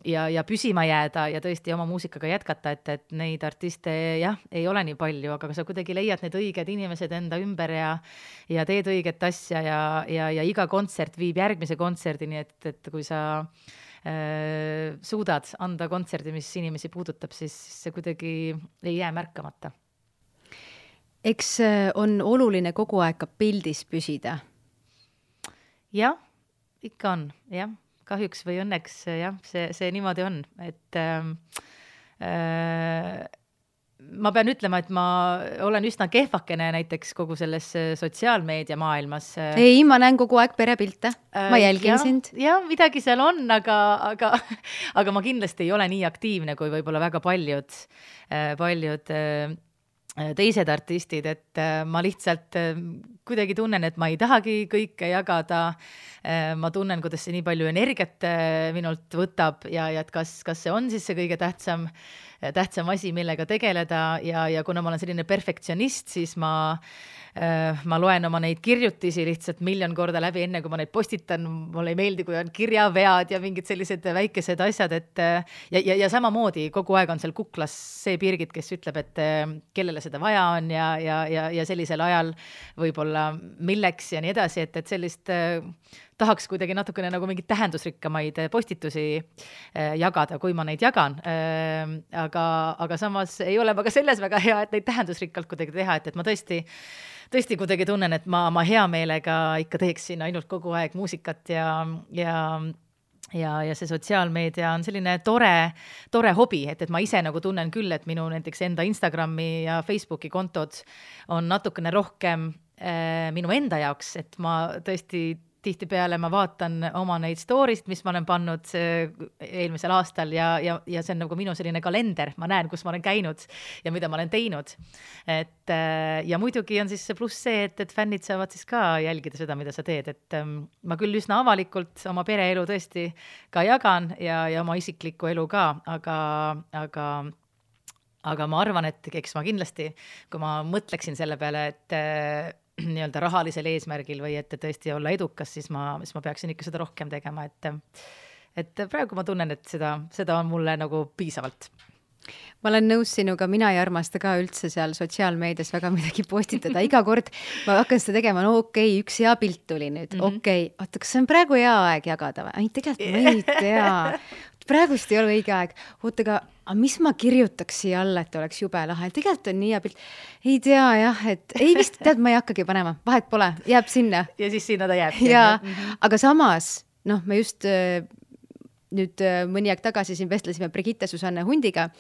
ja püsima jääda ja tõesti oma muusikaga jätkata, et neid artiste ei ole nii palju, aga sa kuidagi leiad need õiged inimesed enda ümber ja teed õiget asja ja iga kontsert viib järgmise kontserdini, et kui sa suudad anda kontserdi, mis inimesi puudutab, siis see kuidagi ei jää märkamata. Eks on oluline kogu aeg ka pildis püsida? Jah, ikka on, jah. Kahjuks või õnneks, jah, see niimoodi on, et ma pean ütlema, et ma olen üsna kehvakene näiteks kogu selles sotsiaalmeedia maailmas. Ei, ma näen kogu aeg perepilte, ma jälgin sind. Ja midagi seal on, aga ma kindlasti ei ole nii aktiivne kui võib-olla väga paljud teised artistid, et ma lihtsalt kuidagi tunnen, et ma ei tahagi kõike jagada. Ma tunnen, kuidas see nii palju energiat minult võtab ja et kas see on siis see kõige tähtsam asi, millega tegeleda ja kuna ma olen selline perfektsionist, siis ma loen oma neid kirjutisi lihtsalt 1,000,000 korda läbi, enne kui ma neid postitan. Mulle ei meeldi, kui on kirjavead ja mingid sellised väikesed asjad, ja samamoodi kogu aeg on seal kuklas see Birgit, kes ütleb, et kellele seda vaja on ja sellisel ajal võib-olla milleks ja nii edasi, et sellist tahaks kuidagi natukene nagu mingid tähendusrikkamaid postitusi jagada, kui ma neid jagan. Aga samas ei ole ka selles väga hea, et neid tähendusrikkalt kuidagi teha, et ma tõesti kuidagi tunnen, et ma hea meelega ikka teeksin ainult kogu aeg muusikat ja see sotsiaalmeedia on selline tore hobi, et ma ise nagu tunnen küll, et minu näiteks enda Instagrami ja Facebooki kontod on natukene rohkem minu enda jaoks, et ma tõesti tihtipeale ma vaatan oma neid story'st, mis ma olen pannud eelmisel aastal ja see on nagu minu selline kalender, ma näen, kus ma olen käinud ja mida ma olen teinud. Ja muidugi on siis see pluss see, et fännid saavad siis ka jälgida seda, mida sa teed, et ma küll üsna avalikult oma pereelu tõesti ka jagan ja oma isiklikku elu ka, aga ma arvan, et eks ma kindlasti, kui ma mõtleksin selle peale, et nii-öelda rahalisel eesmärgil või et tõesti olla edukas, siis ma peaksin ikka seda rohkem tegema, et praegu ma tunnen, et seda on mulle nagu piisavalt. Ma olen nõus sinuga, mina ei armasta ka üldse seal sotsiaalmeedias väga midagi postitada. Iga kord ma hakkan seda tegema, no okei, üks hea pilt tuli nüüd, okei, oota, kas see on praegu hea aeg jagada või? Ei, tegelikult ma ei tea. Praegust ei ole õige aeg. Oota, aga mis ma kirjutaks siia alla, et oleks jube lahe? Tegelikult on nii hea pilt. Ei tea jah, et ei vist tead, ma ei hakkagi panema. Vahet pole, jääb sinna. Ja siis sinna ta jääb. Ja, aga samas, me just nüüd mõni aeg tagasi siin vestlesime Brigitte Susanne Hundiga,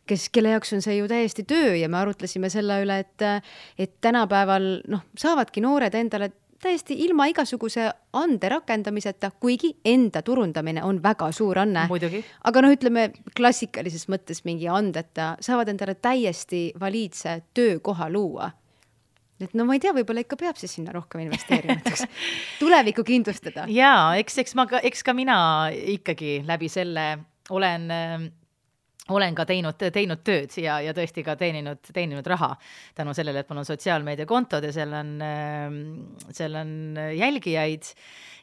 kelle jaoks on see ju täiesti töö ja me arutlesime selle üle, et tänapäeval saavadki noored endale täiesti ilma igasuguse ande rakendamiseta, kuigi enda turundamine on väga suur anne. Muidugi. Aga ütleme klassikalises mõttes mingi andeta, saavad endale täiesti valiidse töökoha luua. Et ma ei tea, võib-olla ikka peab siis sinna rohkem investeerimiseks. Tulevikku kindlustada. Jaa, eks ka mina ikkagi läbi selle olen ka teinud tööd ja tõesti ka teeninud raha tänu sellele, et mul on sotsiaalmeediakontod ja seal on jälgijaid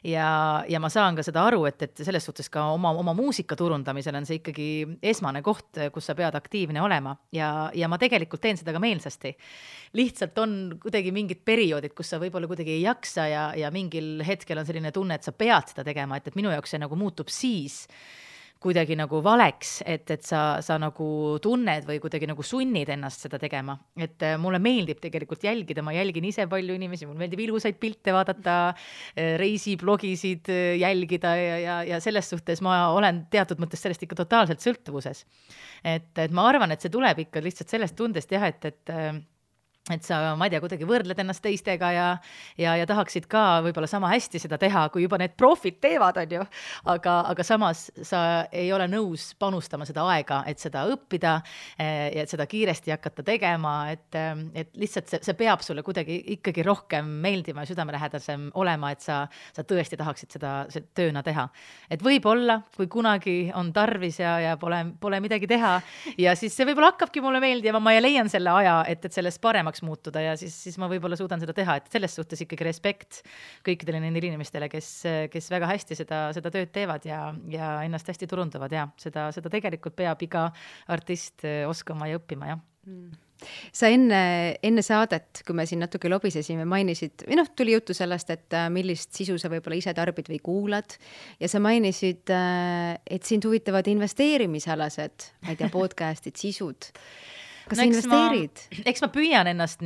ja ma saan ka seda aru, et selles suhtes ka oma muusika turundamisel on see ikkagi esmane koht, kus sa pead aktiivne olema ja ma tegelikult teen seda ka meelsasti. Lihtsalt on kuidagi mingid perioodid, kus sa võib-olla kuidagi ei jaksa ja mingil hetkel on selline tunne, et sa pead seda tegema, et minu jaoks see nagu muutub siis, kuidagi nagu valeks, et sa nagu tunned või kuidagi nagu sunnid ennast seda tegema. Et mulle meeldib tegelikult jälgida, ma jälgin ise palju inimesi, mulle meeldib ilusaid pilte vaadata, reisiblogisid jälgida ja selles suhtes ma olen teatud mõttes sellest ikka totaalselt sõltuvuses. Et ma arvan, et see tuleb ikka lihtsalt sellest tundest jah, et sa, ma ei tea, kuidagi võrdled ennast teistega ja tahaksid ka võib-olla sama hästi seda teha, kui juba need profid teevad, on ju. Aga samas sa ei ole nõus panustama seda aega, et seda õppida ja et seda kiiresti hakata tegema, et lihtsalt see peab sulle kuidagi ikkagi rohkem meeldima ja südamelähedasem olema, et sa tõesti tahaksid seda tööna teha. Et võib-olla, kui kunagi on tarvis ja pole midagi teha ja siis see võib-olla hakkabki mulle meeldima, ma leian selle aja, et sellest paremaks muutuda ja siis ma võib-olla suudan seda teha, et selles suhtes ikkagi respekt kõikidele nendele inimestele, kes väga hästi seda tööd teevad ja ennast hästi turundavad ja seda tegelikult peab iga artist oskama ja õppima, jah. Sa enne saadet, kui me siin natuke lobisesime, mainisid, või tuli juttu sellest, et millist sisu sa võib-olla ise tarbid või kuulad ja sa mainisid, et sind huvitavad investeerimisalased, ma ei tea, podcastid, sisud. Kas sa investeerid? Eks ma püüan ennast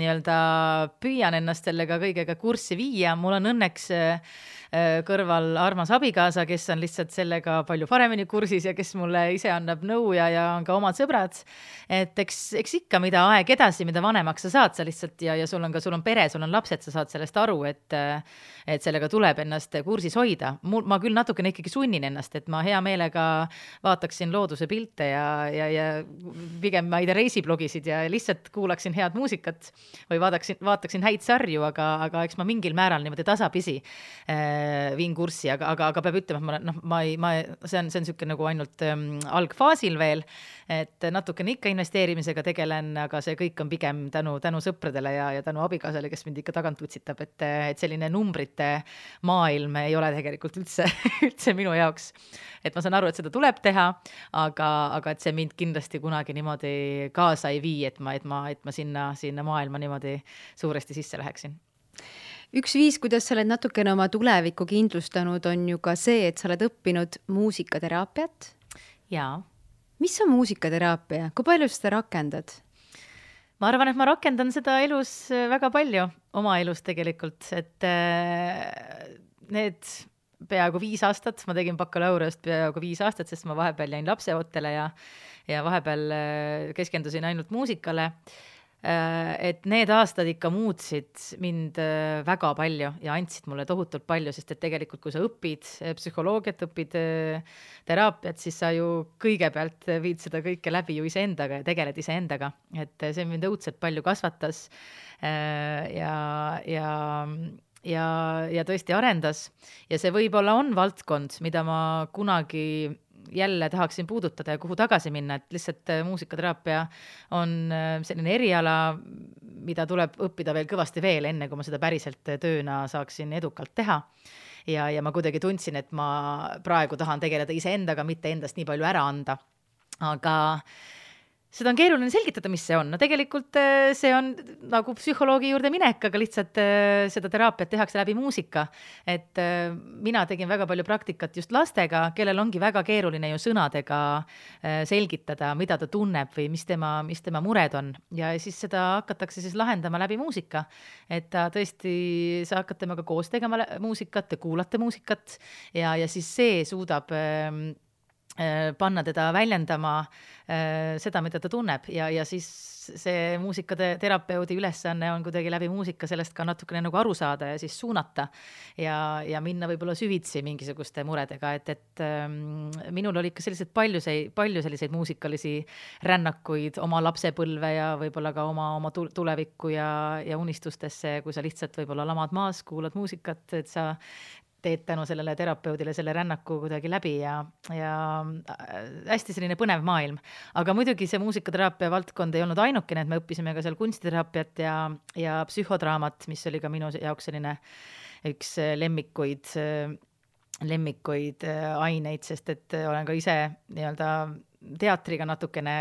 sellega kõigega kurssi viia. Mul on õnneks kõrval armas abikaasa, kes on lihtsalt sellega palju paremini kursis ja kes mulle ise annab nõu ja on ka omad sõbrad. Et eks ikka, mida aeg edasi, mida vanemaks sa saad, sa lihtsalt ja sul on pere, sul on lapsed, sa saad sellest aru, et sellega tuleb ennast kursis hoida. Ma küll natukene ikkagi sunnin ennast, et ma hea meelega vaataksin looduse pilte ja pigem ma ei tea reisiblogisid ja lihtsalt kuulaksin head muusikat või vaataksin häid sarju, aga eks ma mingil määral niimoodi tasapisi viin kurssi, aga peab ütlema, et see on niisugune nagu ainult algfaasil veel, et natukene ikka investeerimisega tegelen, aga see kõik on pigem tänu sõpradele ja tänu abikaasale, kes mind ikka tagant utsitab, et selline numbrite maailm ei ole tegelikult üldse minu jaoks. Et ma saan aru, et seda tuleb teha, aga et see mind kindlasti kunagi niimoodi kaasa ei vii, et ma sinna maailma niimoodi suuresti sisse läheksin. Üks viis, kuidas sa oled natukene oma tulevikku kindlustanud, on ju ka see, et sa oled õppinud muusikateraapiat. Jaa. Mis on muusikateraapia? Kui palju seda rakendad? Ma arvan, et ma rakendan seda elus väga palju, oma elus tegelikult, et need peaaegu 5 aastat, ma tegin bakalaureust peaaegu 5 aastat, sest ma vahepeal jäin lapseootele ja vahepeal keskendusin ainult muusikale. Et need aastad ikka muutsid mind väga palju ja andsid mulle tohutult palju, sest et tegelikult kui sa õpid psühholoogiat, õpid teraapiat, siis sa ju kõigepealt viid seda kõike läbi ju iseendaga ja tegeled iseendaga, et see mind õudselt palju kasvatas ja tõesti arendas ja see võib-olla on valdkond, mida ma kunagi jälle tahaksin puudutada ja kuhu tagasi minna, et lihtsalt muusikateraapia on selline eriala, mida tuleb õppida veel kõvasti veel, enne kui ma seda päriselt tööna saaksin edukalt teha. Ja ma kuidagi tundsin, et ma praegu tahan tegeleda iseendaga, mitte endast nii palju ära anda. Aga seda on keeruline selgitada, mis see on. No tegelikult see on nagu psühholoogi juurde minek, aga lihtsalt seda teraapiat tehakse läbi muusika. Et mina tegin väga palju praktikat just lastega, kellel ongi väga keeruline ju sõnadega selgitada, mida ta tunneb või mis tema mured on. Ja siis seda hakatakse siis lahendama läbi muusika. Et tõesti, sa hakkad temaga koos tegema muusikat, te kuulate muusikat ja siis see suudab panna teda väljendama seda, mida ta tunneb ja siis see muusikaterapeudi ülesanne on kuidagi läbi muusika sellest ka natukene nagu aru saada ja siis suunata ja minna võib-olla süvitsi mingisuguste muredega, et minul oli ikka palju selliseid muusikalisi rännakuid oma lapsepõlve ja võib-olla ka oma tulevikku ja unistustesse, kui sa lihtsalt võib-olla lamad maas, kuulad muusikat, et sa teed tänu sellele terapeudile selle rännaku kuidagi läbi ja hästi selline põnev maailm. Aga muidugi see muusikateraapia valdkond ei olnud ainukene, et me õppisime ka seal kunstiteraapiat ja psühhodraamat, mis oli ka minu jaoks selline üks lemmikuid aineid, sest et olen ka ise nii-öelda teatriga natukene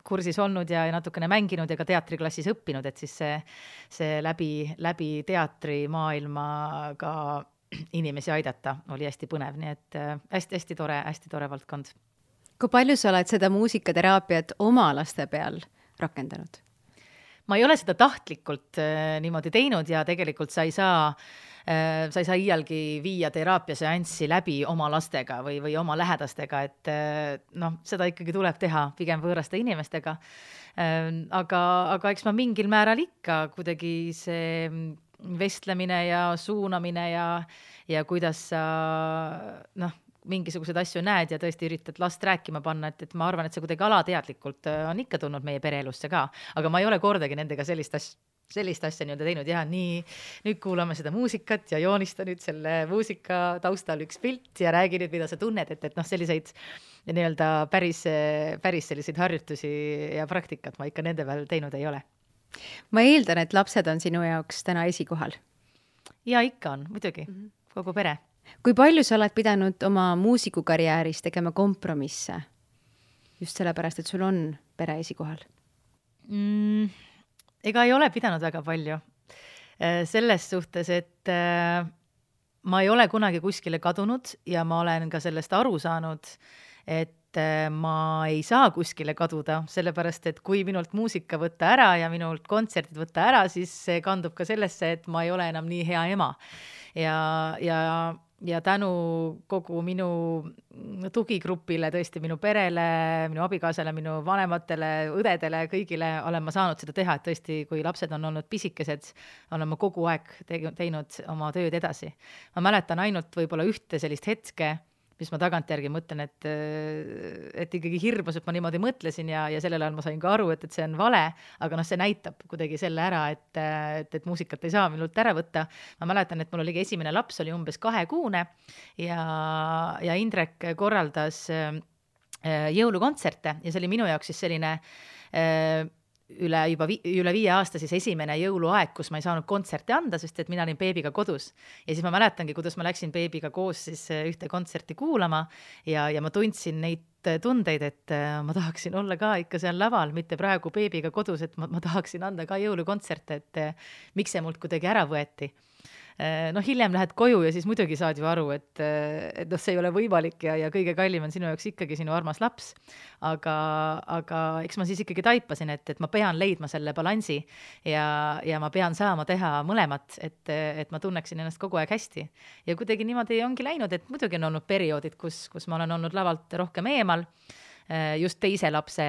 kursis olnud ja natukene mänginud ja ka teatriklassis õppinud, et siis see läbi teatrimaailma ka inimesi aidata oli hästi põnev, nii et hästi tore valdkond. Kui palju sa oled seda muusikateraapiat oma laste peal rakendanud? Ma ei ole seda tahtlikult niimoodi teinud ja tegelikult sa ei saa iialgi viia teraapiaseanssi läbi oma lastega või oma lähedastega, et seda ikkagi tuleb teha pigem võõraste inimestega. Aga eks ma mingil määral ikka kuidagi see vestlemine ja suunamine ja kuidas sa mingisuguseid asju näed ja tõesti üritad last rääkima panna, et ma arvan, et see kuidagi alateadlikult on ikka tulnud meie pereelusse ka, aga ma ei ole kordagi nendega sellist asja nii-öelda teinud, nüüd kuulame seda muusikat ja joonista nüüd selle muusika taustal üks pilt ja räägi nüüd, mida sa tunned, et selliseid nii-öelda päris selliseid harjutusi ja praktikat ma ikka nende peal teinud ei ole. Ma eeldan, et lapsed on sinu jaoks täna esikohal. Ja ikka on, muidugi, kogu pere. Kui palju sa oled pidanud oma muusikukarjääris tegema kompromisse? Just sellepärast, et sul on pere esikohal. Ega ei ole pidanud väga palju. Selles suhtes, et ma ei ole kunagi kuskile kadunud ja ma olen ka sellest aru saanud, et ma ei saa kuskile kaduda, sellepärast, et kui minult muusika võtta ära ja minult kontserdid võtta ära, siis see kandub ka sellesse, et ma ei ole enam nii hea ema. Ja tänu kogu minu tugigrupile, tõesti minu perele, minu abikaasale, minu vanematele, õdedele, kõigile olen ma saanud seda teha, et tõesti, kui lapsed on olnud pisikesed, olen ma kogu aeg teinud oma tööd edasi. Ma mäletan ainult võib-olla ühte sellist hetke, mis ma tagantjärgi mõtlen, et ikkagi hirmus, et ma niimoodi mõtlesin ja sellel ajal ma sain ka aru, et see on vale, aga see näitab kuidagi selle ära, et muusikat ei saa minult ära võtta. Ma mäletan, et mul oligi esimene laps, oli umbes 2-kuune ja Indrek korraldas jõulukontserte ja see oli minu jaoks siis selline üle 5 aasta siis esimene jõuluaeg, kus ma ei saanud kontserte anda, sest et mina olin beebiga kodus. Ja siis ma mäletangi, kuidas ma läksin beebiga koos siis ühte kontserti kuulama ja ma tundsin neid tundeid, et ma tahaksin olla ka ikka seal laval, mitte praegu beebiga kodus, et ma tahaksin anda ka jõulukontserte, et miks see mult kuidagi ära võeti. Hiljem lähed koju ja siis muidugi saad ju aru, et see ei ole võimalik ja kõige kallim on sinu jaoks ikkagi sinu armas laps. Aga eks ma siis ikkagi taipasin, et ma pean leidma selle balansi ja ma pean saama teha mõlemat, et ma tunneksin ennast kogu aeg hästi. Ja kuidagi niimoodi ongi läinud, et muidugi on olnud perioodid, kus ma olen olnud lavalt rohkem eemal, just teise lapse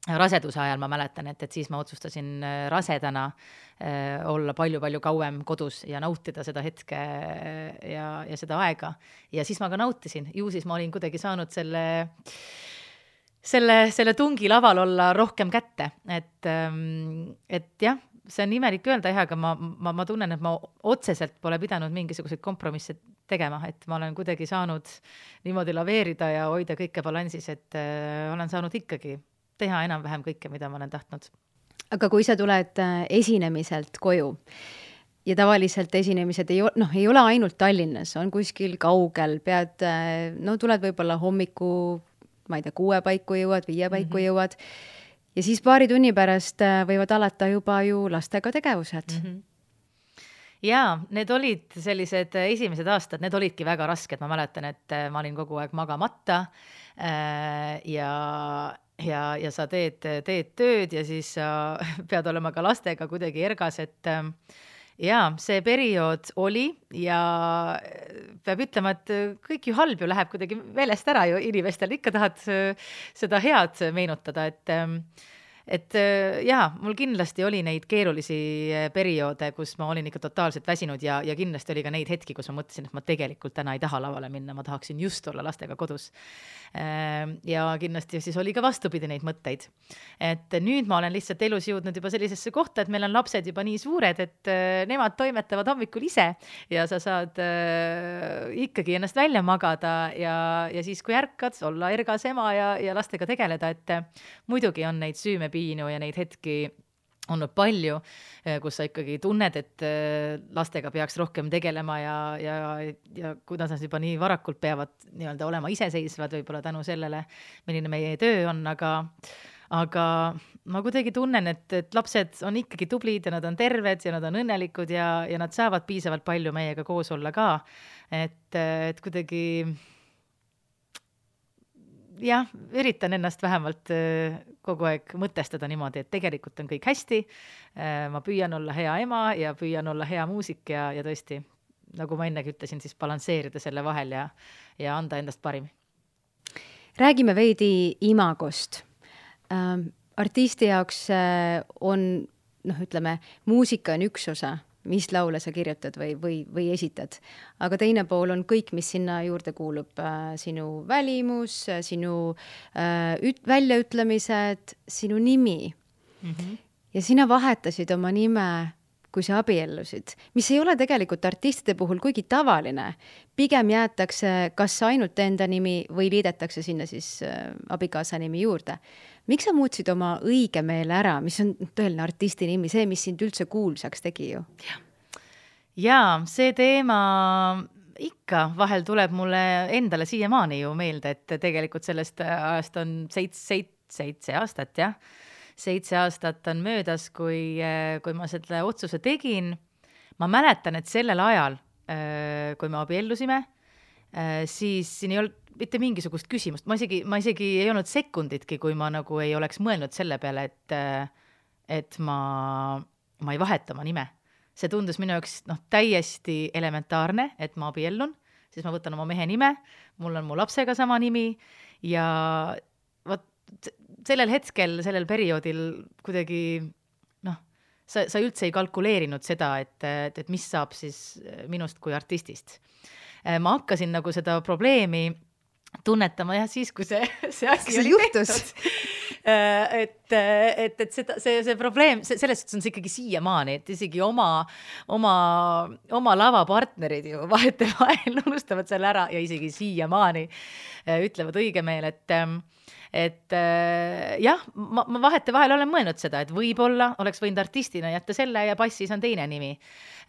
raseduse ajal ma mäletan, et siis ma otsustasin rasedana olla palju kauem kodus ja nautida seda hetke ja seda aega. Ja siis ma ka nautisin. Ju siis ma olin kuidagi saanud selle tungi laval olla rohkem kätte. Et jah, see on imelik öelda, aga ma tunnen, et ma otseselt pole pidanud mingisuguseid kompromisse tegema, et ma olen kuidagi saanud niimoodi laveerida ja hoida kõike balansis, et olen saanud ikkagi teha enam-vähem kõike, mida ma olen tahtnud. Aga kui sa tuled esinemiselt koju ja tavaliselt esinemised ei ole ainult Tallinnas, on kuskil kaugel, tuled võib-olla hommiku, ma ei tea, 6 paiku jõuad, 5 paiku jõuad ja siis paari tunni pärast võivad alata juba ju lastega tegevused. Jaa, need olid sellised esimesed aastad, need olidki väga rasked, ma mäletan, et ma olin kogu aeg magamata ja sa teed tööd ja siis sa pead olema ka lastega kuidagi ergas, et see periood oli ja peab ütlema, et kõik ju halb ju läheb kuidagi meelest ära ju inimestel, ikka tahad seda head meenutada, et jaa, mul kindlasti oli neid keerulisi perioode, kus ma olin ikka totaalselt väsinud ja kindlasti oli ka neid hetki, kus ma mõtlesin, et ma tegelikult täna ei taha lavale minna, ma tahaksin just olla lastega kodus. Ja kindlasti siis oli ka vastupidi neid mõtteid. Et nüüd ma olen lihtsalt elus jõudnud juba sellisesse kohta, et meil on lapsed juba nii suured, et nemad toimetavad hommikul ise ja sa saad ikkagi ennast välja magada ja siis, kui ärkad, olla ergas ema ja lastega tegeleda, et muidugi on neid süümepiinu ja neid hetki olnud palju, kus sa ikkagi tunned, et lastega peaks rohkem tegelema ja kuidas nad juba nii varakult peavad nii-öelda olema iseseisvad võib-olla tänu sellele, milline meie töö on, aga ma kuidagi tunnen, et lapsed on ikkagi tublid ja nad on terved ja nad on õnnelikud ja nad saavad piisavalt palju meiega koos olla ka, et kuidagi jah, üritan ennast vähemalt kogu aeg mõtestada niimoodi, et tegelikult on kõik hästi, ma püüan olla hea ema ja püüan olla hea muusik ja tõesti, nagu ma ennegi ütlesin, siis balansseerida selle vahel ja anda endast parim. Räägime veidi imagost. Artisti jaoks on, ütleme, muusika on üks osa, mis laule sa kirjutad või esitad. Aga teine pool on kõik, mis sinna juurde kuulub. Sinu välimus, sinu väljaütlemised, sinu nimi. Mm-hmm. Ja sina vahetasid oma nime, kui sa abiellusid, mis ei ole tegelikult artistide puhul kuigi tavaline. Pigem jäetakse kas ainult enda nimi või liidetakse sinna siis abikaasa nimi juurde. Miks sa muutsid oma õige meele ära, mis on tõeline artisti nimi, see, mis sind üldse kuulsaks tegi ju? Jaa, see teema ikka vahel tuleb mulle endale siiamaani ju meelde, et tegelikult sellest ajast on 7 aastat, jah. 7 aastat on möödas, kui ma selle otsuse tegin. Ma mäletan, et sellel ajal, kui me abiellusime, siis siin ei olnud mitte mingisugust küsimust. Ma isegi ei olnud sekunditki, kui ma nagu ei oleks mõelnud selle peale, et ma ei vaheta oma nime. See tundus minu jaoks täiesti elementaarne, et ma abiellun, siis ma võtan oma mehe nime, mul on mu lapsega sama nimi ja sellel hetkel, sellel perioodil kuidagi sa üldse ei kalkuleerinud seda, et mis saab siis minust kui artistist. Ma hakkasin nagu seda probleemi tunnetama jah siis, kui see asi oli tehtud. Et see probleem, selles suhtes on see ikkagi siiamaani, et isegi oma lavapartnerid ju vahetevahel unustavad selle ära ja isegi siiamaani ütlevad õige meel, et jah, ma vahetevahel olen mõelnud seda, et võib-olla oleks võinud artistina jätta selle ja passis on teine nimi.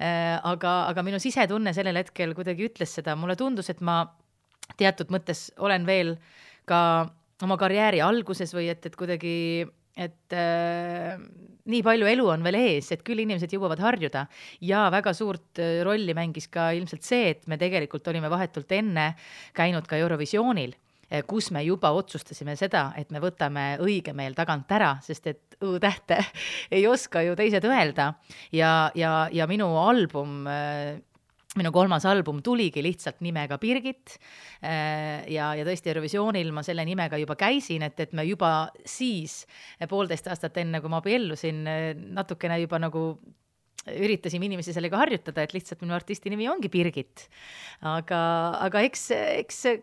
Aga minu sisetunne sellel hetkel kuidagi ütles seda, mulle tundus, et ma teatud mõttes olen veel ka oma karjääri alguses või et kuidagi, et nii palju elu on veel ees, et küll inimesed jõuavad harjuda ja väga suurt rolli mängis ka ilmselt see, et me tegelikult olime vahetult enne käinud ka Eurovisioonil, kus me juba otsustasime seda, et me võtame õige meel tagant ära, sest et õ-tähte ei oska ju teised öelda ja minu album minu 3. album tuligi lihtsalt nimega Birgit ja tõesti Eurovisioonil ma selle nimega juba käisin, et me juba siis 1,5 aastat enne, kui ma abiellusin, natukene juba nagu üritasime inimesi sellega harjutada, et lihtsalt minu artisti nimi ongi Birgit. Aga eks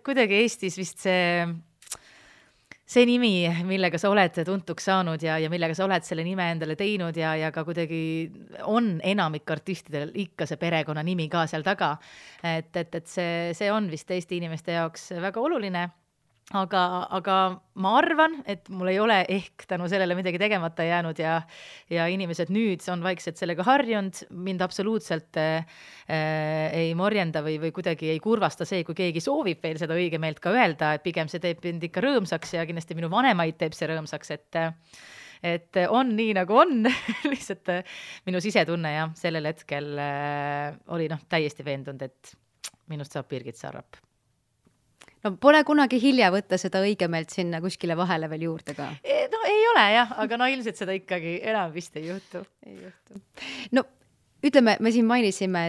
kuidagi Eestis vist see nimi, millega sa oled tuntuks saanud ja millega sa oled selle nime endale teinud ja ka kuidagi on enamik artistidel ikka see perekonna nimi ka seal taga. Et see on vist Eesti inimeste jaoks väga oluline. Aga ma arvan, et mul ei ole ehk tänu sellele midagi tegemata jäänud ja inimesed nüüd on vaikselt sellega harjunud, mind absoluutselt ei morjenda või kuidagi ei kurvasta see, kui keegi soovib veel seda õige meelt ka öelda, et pigem see teeb mind ikka rõõmsaks ja kindlasti minu vanemaid teeb see rõõmsaks, et on nii nagu on, lihtsalt minu sisetunne ja sellel hetkel oli täiesti veendunud, et minust saab Birgit Sarrap. No pole kunagi hilja võtta seda õigemeelt sinna kuskile vahele veel juurde ka. No ei ole jah, aga ilmselt seda ikkagi enam vist ei juhtu. No ütleme, me siin mainisime,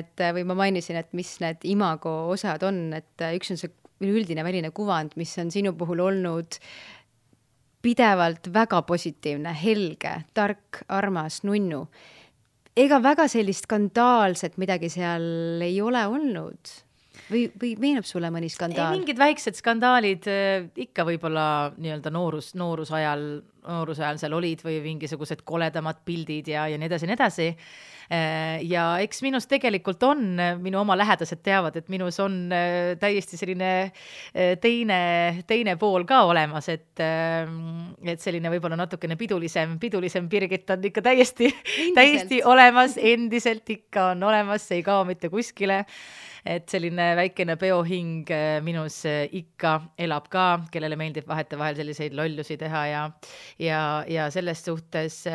ma mainisin, et mis need imago osad on, et üks on see üldine väline kuvand, mis on sinu puhul olnud pidevalt väga positiivne, helge, tark, armas, nunnu. Ega väga sellist skandaalset midagi seal ei ole olnud? Või meenub sulle mõni skandaal? Mingid väiksed skandaalid ikka võib-olla nii-öelda noorusajal seal olid või mingisugused koledamad pildid ja nii edasi. Ja eks minus tegelikult on, minu oma lähedased teavad, et minus on täiesti selline teine pool ka olemas, et selline võib-olla natukene pidulisem Birgit on ikka täiesti olemas, endiselt ikka on olemas, see ei kao mitte kuskile. Et selline väikene peohing minus ikka elab ka, kellele meeldib vahetevahel selliseid lollusi teha ja selles suhtes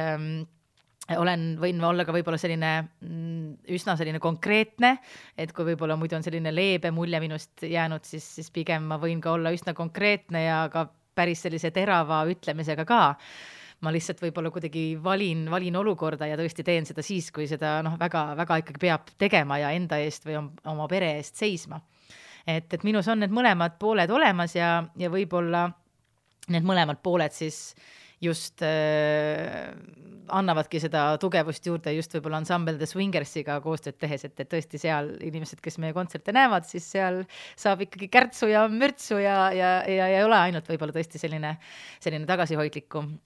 võin olla ka võib-olla selline üsna selline konkreetne, et kui võib-olla muidu on selline leebe mulje minust jäänud, siis pigem ma võin ka olla üsna konkreetne ja ka päris sellise terava ütlemisega ka. Ma lihtsalt võib-olla kuidagi valin olukorda ja tõesti teen seda siis, kui seda väga ikkagi peab tegema ja enda eest või oma pere eest seisma. Et minus on need mõlemad pooled olemas ja võib-olla need mõlemad pooled siis just annavadki seda tugevust juurde just võib-olla Ensemble The Swingersiga koostööd tehes, et tõesti seal inimesed, kes meie kontserte näevad, siis seal saab ikkagi kärtsu ja mürtsu ja ei ole ainult võib-olla tõesti selline tagasihoidlikum.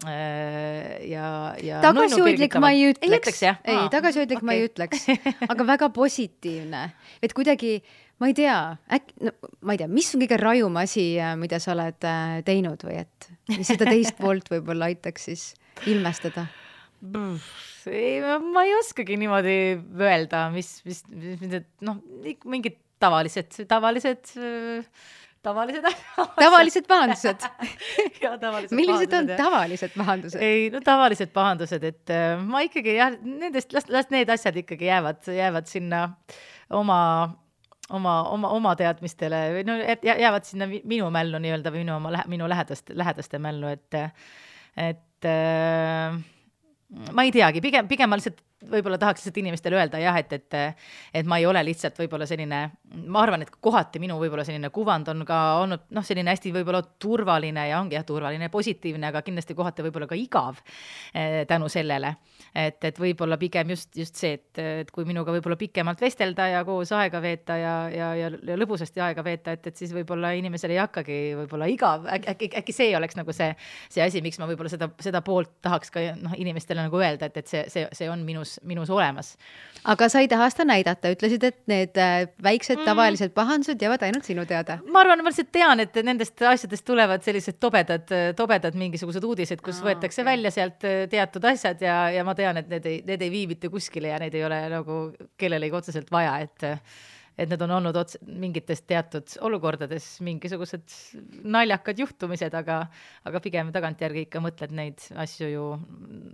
Tagasihoidlik ma ei ütleks. Tagasihoidlik ma ei ütleks, aga väga positiivne. Et kuidagi, ma ei tea, mis on kõige rajum asi, mida sa oled teinud või et mis seda teist poolt võib-olla aitaks siis ilmestada? Ma ei oskagi niimoodi öelda, mis mingid tavalised pahandused. Millised on tavalised pahandused? Tavalised pahandused, et ma ikkagi las need asjad ikkagi jäävad sinna oma teadmistele või jäävad sinna minu mällu nii-öelda või minu lähedaste mällu, et ma ei teagi, pigem ma lihtsalt võib-olla tahaks lihtsalt inimestele öelda et ma ei ole lihtsalt võib-olla selline, ma arvan, et kohati minu võib-olla selline kuvand on ka olnud selline hästi võib-olla turvaline ja ongi turvaline ja positiivne, aga kindlasti kohati võib-olla ka igav tänu sellele, et võib-olla pigem just see, et kui minuga võib-olla pikemalt vestelda ja koos aega veeta ja lõbusasti aega veeta, et siis võib-olla inimesel ei hakkagi võib-olla igav, äkki see oleks nagu see asi, miks ma võib-olla seda poolt tahaks ka inimestele nagu öelda, et see on minus olemas. Aga sa ei taha seda näidata, ütlesid, et need väiksed tavalised pahandused jäävad ainult sinu teada. Ma arvan, ma lihtsalt tean, et nendest asjadest tulevad sellised tobedad mingisugused uudised, kus võetakse välja sealt teatud asjad ja ma tean, et need ei vii mitte kuskile ja need ei ole nagu kellelegi otseselt vaja, et need on olnud mingitest teatud olukordades mingisugused naljakad juhtumised, aga pigem tagantjärgi ikka mõtled neid asju ju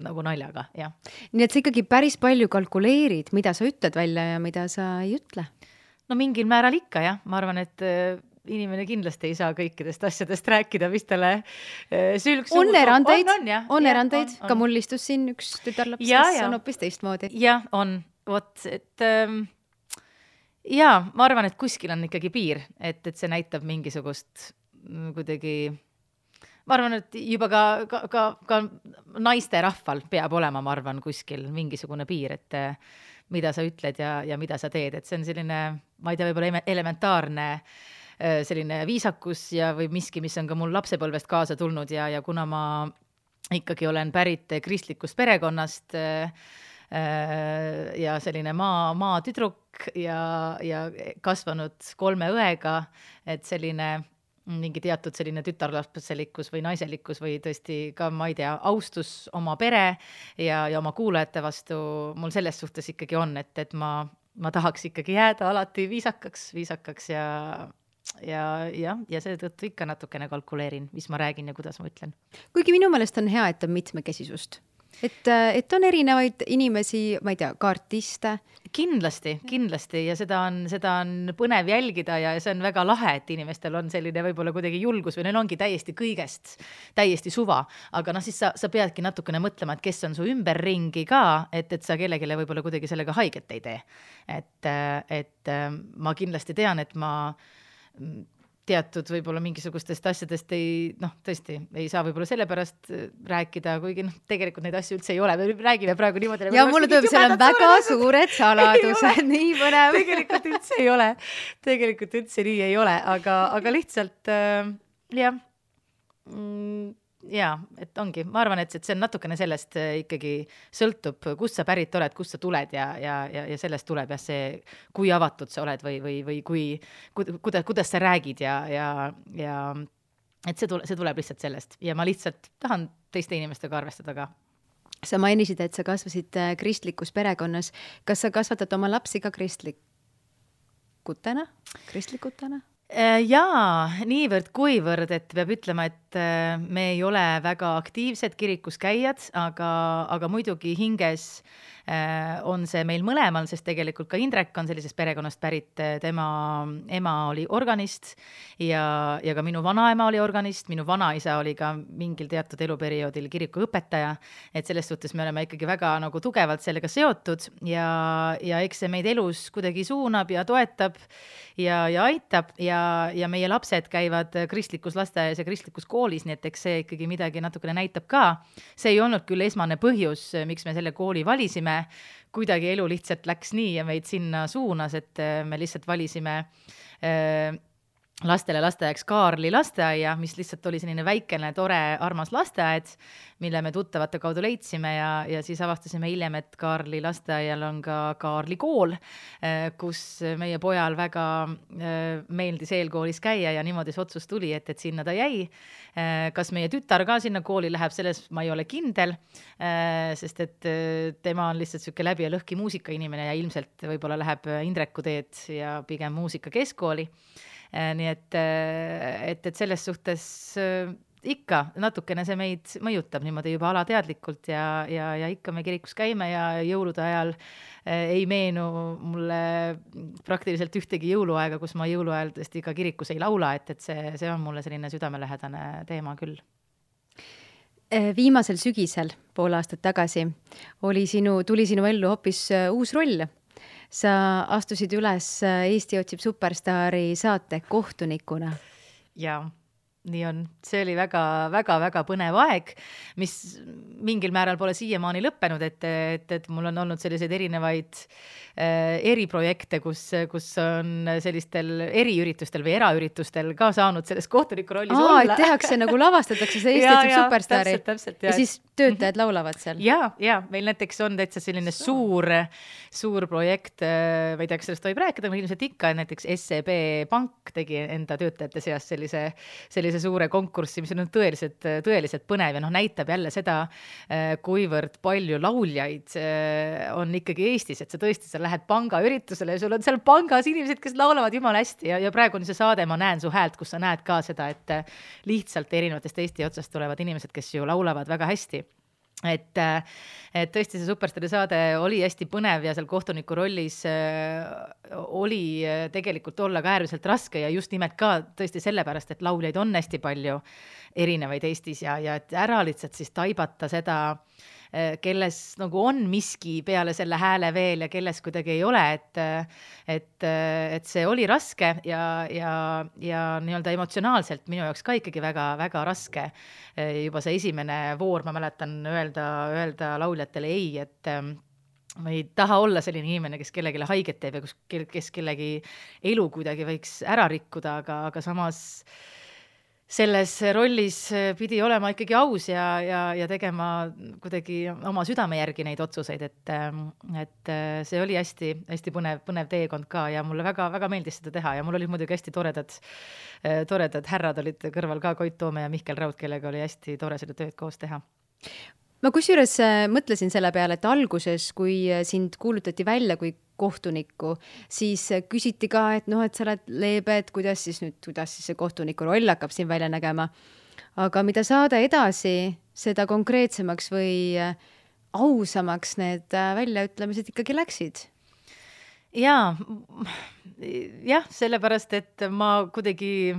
nagu naljaga, jah. Nii et sa ikkagi päris palju kalkuleerid, mida sa ütled välja ja mida sa ei ütle? No mingil määral ikka, jah. Ma arvan, et inimene kindlasti ei saa kõikidest asjadest rääkida, mis talle sülg on erandeid, ka mul istus siin üks tütarlaps, kes on hoopis teistmoodi. Jah, on. Ma arvan, et kuskil on ikkagi piir, et see näitab mingisugust kuidagi, ma arvan, et juba ka naiste rahval peab olema, ma arvan, kuskil mingisugune piir, et mida sa ütled ja mida sa teed, et see on selline, ma ei tea, võib-olla elementaarne selline viisakus või miski, mis on ka mul lapsepõlvest kaasa tulnud ja kuna ma ikkagi olen pärit kristlikust perekonnast ja selline maa tüdruk ja kasvanud 3 õega, et selline mingi teatud selline tütarlapselikkus või naiselikkus või tõesti ka, ma ei tea, austus oma pere ja oma kuulajate vastu mul selles suhtes ikkagi on, et ma tahaks ikkagi jääda alati viisakaks ja seetõttu ikka natukene kalkuleerin, mis ma räägin ja kuidas ma ütlen. Kuigi minu meelest on hea, et on mitmekesisust. Et on erinevaid inimesi, ma ei tea, ka artiste. Kindlasti ja seda on põnev jälgida ja see on väga lahe, et inimestel on selline võib-olla kuidagi julgus või neil ongi kõigest täiesti suva, aga siis sa peadki natukene mõtlema, et kes on su ümberringi ka, et sa kellelegi võib-olla kuidagi sellega haiget ei tee. Et ma kindlasti tean, et ma teatud võib-olla mingisugustest asjadest tõesti ei saa võib-olla sellepärast rääkida, kuigi tegelikult neid asju üldse ei ole, me räägime praegu niimoodi. Ja mulle tuleb, seal on väga suured saladused, nii põnev. Tegelikult üldse ei ole, tegelikult üldse nii ei ole, aga lihtsalt et ongi, ma arvan, et see on natukene sellest ikkagi sõltub, kust sa pärit oled, kust sa tuled ja sellest tuleb see, kui avatud sa oled või kuidas sa räägid ja et see tuleb lihtsalt sellest ja ma lihtsalt tahan teiste inimestega arvestada ka. Sa mainisid, et sa kasvasid kristlikus perekonnas. Kas sa kasvatad oma lapsi ka kristlikutena? Jaa, niivõrd kuivõrd, et peab ütlema, et me ei ole väga aktiivsed kirikus käijad, aga muidugi hinges on see meil mõlemal, sest tegelikult ka Indrek on sellisest perekonnast pärit, tema ema oli organist ja ka minu vanaema oli organist, minu vanaisa oli ka mingil teatud eluperioodil kirikuõpetaja, et selles suhtes me oleme ikkagi väga nagu tugevalt sellega seotud ja eks see meid elus kuidagi suunab ja toetab ja aitab ja meie lapsed käivad kristlikus lasteaias ja kristlikus koolis, nii et eks see ikkagi midagi natukene näitab ka. See ei olnud küll esmane põhjus, miks me selle kooli valisime, kuidagi elu lihtsalt läks nii ja meid sinna suunas, et me lihtsalt valisime lastele lasteaiaks Kaarli lasteaia, mis lihtsalt oli selline väikene, tore, armas lasteaed, mille me tuttavate kaudu leidsime ja siis avastasime hiljem, et Kaarli lasteaial on ka Kaarli kool, kus meie pojal väga meeldis eelkoolis käia ja niimoodi see otsus tuli, et sinna ta jäi. Kas meie tütar ka sinna kooli läheb, selles ma ei ole kindel, sest et tema on lihtsalt selline läbi ja lõhki muusikainimene ja ilmselt võib-olla läheb Indreku teed ja pigem muusika keskkooli. Nii et selles suhtes ikka natukene see meid mõjutab niimoodi juba alateadlikult ja ikka me kirikus käime ja jõulude ajal ei meenu mulle praktiliselt ühtegi jõuluaega, kus ma jõuluajal tõesti ka kirikus ei laula, et see on mulle selline südamelähedane teema küll. Viimasel sügisel, pool aastat tagasi, tuli sinu ellu hoopis uus roll. Sa astusid üles Eesti otsib superstaari saate kohtunikuna. Jaa, nii on. See oli väga põnev aeg, mis mingil määral pole siiamaani lõppenud, et mul on olnud selliseid erinevaid eriprojekte, kus on sellistel eriüritustel või eraüritustel ka saanud selles kohtuniku rollis olla. Et tehakse nagu lavastatakse see Eesti otsib superstaari. Täpselt, ja siis töötajad laulavad seal. Ja meil näiteks on täitsa selline suur projekt, ma ei tea, kas sellest võib rääkida, ma ilmselt ikka, näiteks SEB Pank tegi enda töötajate seas sellise suure konkurssi, mis on tõeliselt põnev ja näitab jälle seda, kuivõrd palju lauljaid on ikkagi Eestis, et sa tõesti sa lähed panga üritusele ja sul on seal pangas inimesed, kes laulavad jumala hästi ja praegu on see saade, ma näen su häält, kus sa näed ka seda, et lihtsalt erinevatest Eesti otsast tulevad inimesed, kes ju laulavad väga hästi. Et tõesti see superstaari saade oli hästi põnev ja seal kohtuniku rollis oli tegelikult olla ka äärmiselt raske ja just nimelt ka tõesti sellepärast, et lauljaid on hästi palju erinevaid Eestis ja et ära lihtsalt siis taibata seda, kelles nagu on miski peale selle hääle veel ja kelles kuidagi ei ole, et see oli raske ja nii-öelda emotsionaalselt minu jaoks ka ikkagi väga raske. Juba see esimene voor, ma mäletan öelda lauljatele ei, et ma ei taha olla selline inimene, kes kellelegi haiget teeb ja kes kellegi elu kuidagi võiks ära rikkuda, aga samas selles rollis pidi olema ikkagi aus ja tegema kuidagi oma südame järgi neid otsuseid, et see oli hästi põnev teekond ka ja mulle väga meeldis seda teha ja mul olid muidugi hästi toredad härrad olid kõrval ka, Koit Toome ja Mihkel Raud, kellega oli hästi tore seda tööd koos teha. Ma kusjuures mõtlesin selle peale, et alguses, kui sind kuulutati välja kui kohtunikku, siis küsiti ka, et et sa oled leebe, et kuidas siis see kohtuniku roll hakkab siin välja nägema. Aga mida saada edasi, seda konkreetsemaks või ausamaks need väljaütlemised ikkagi läksid? Jah, sellepärast, et ma kuidagi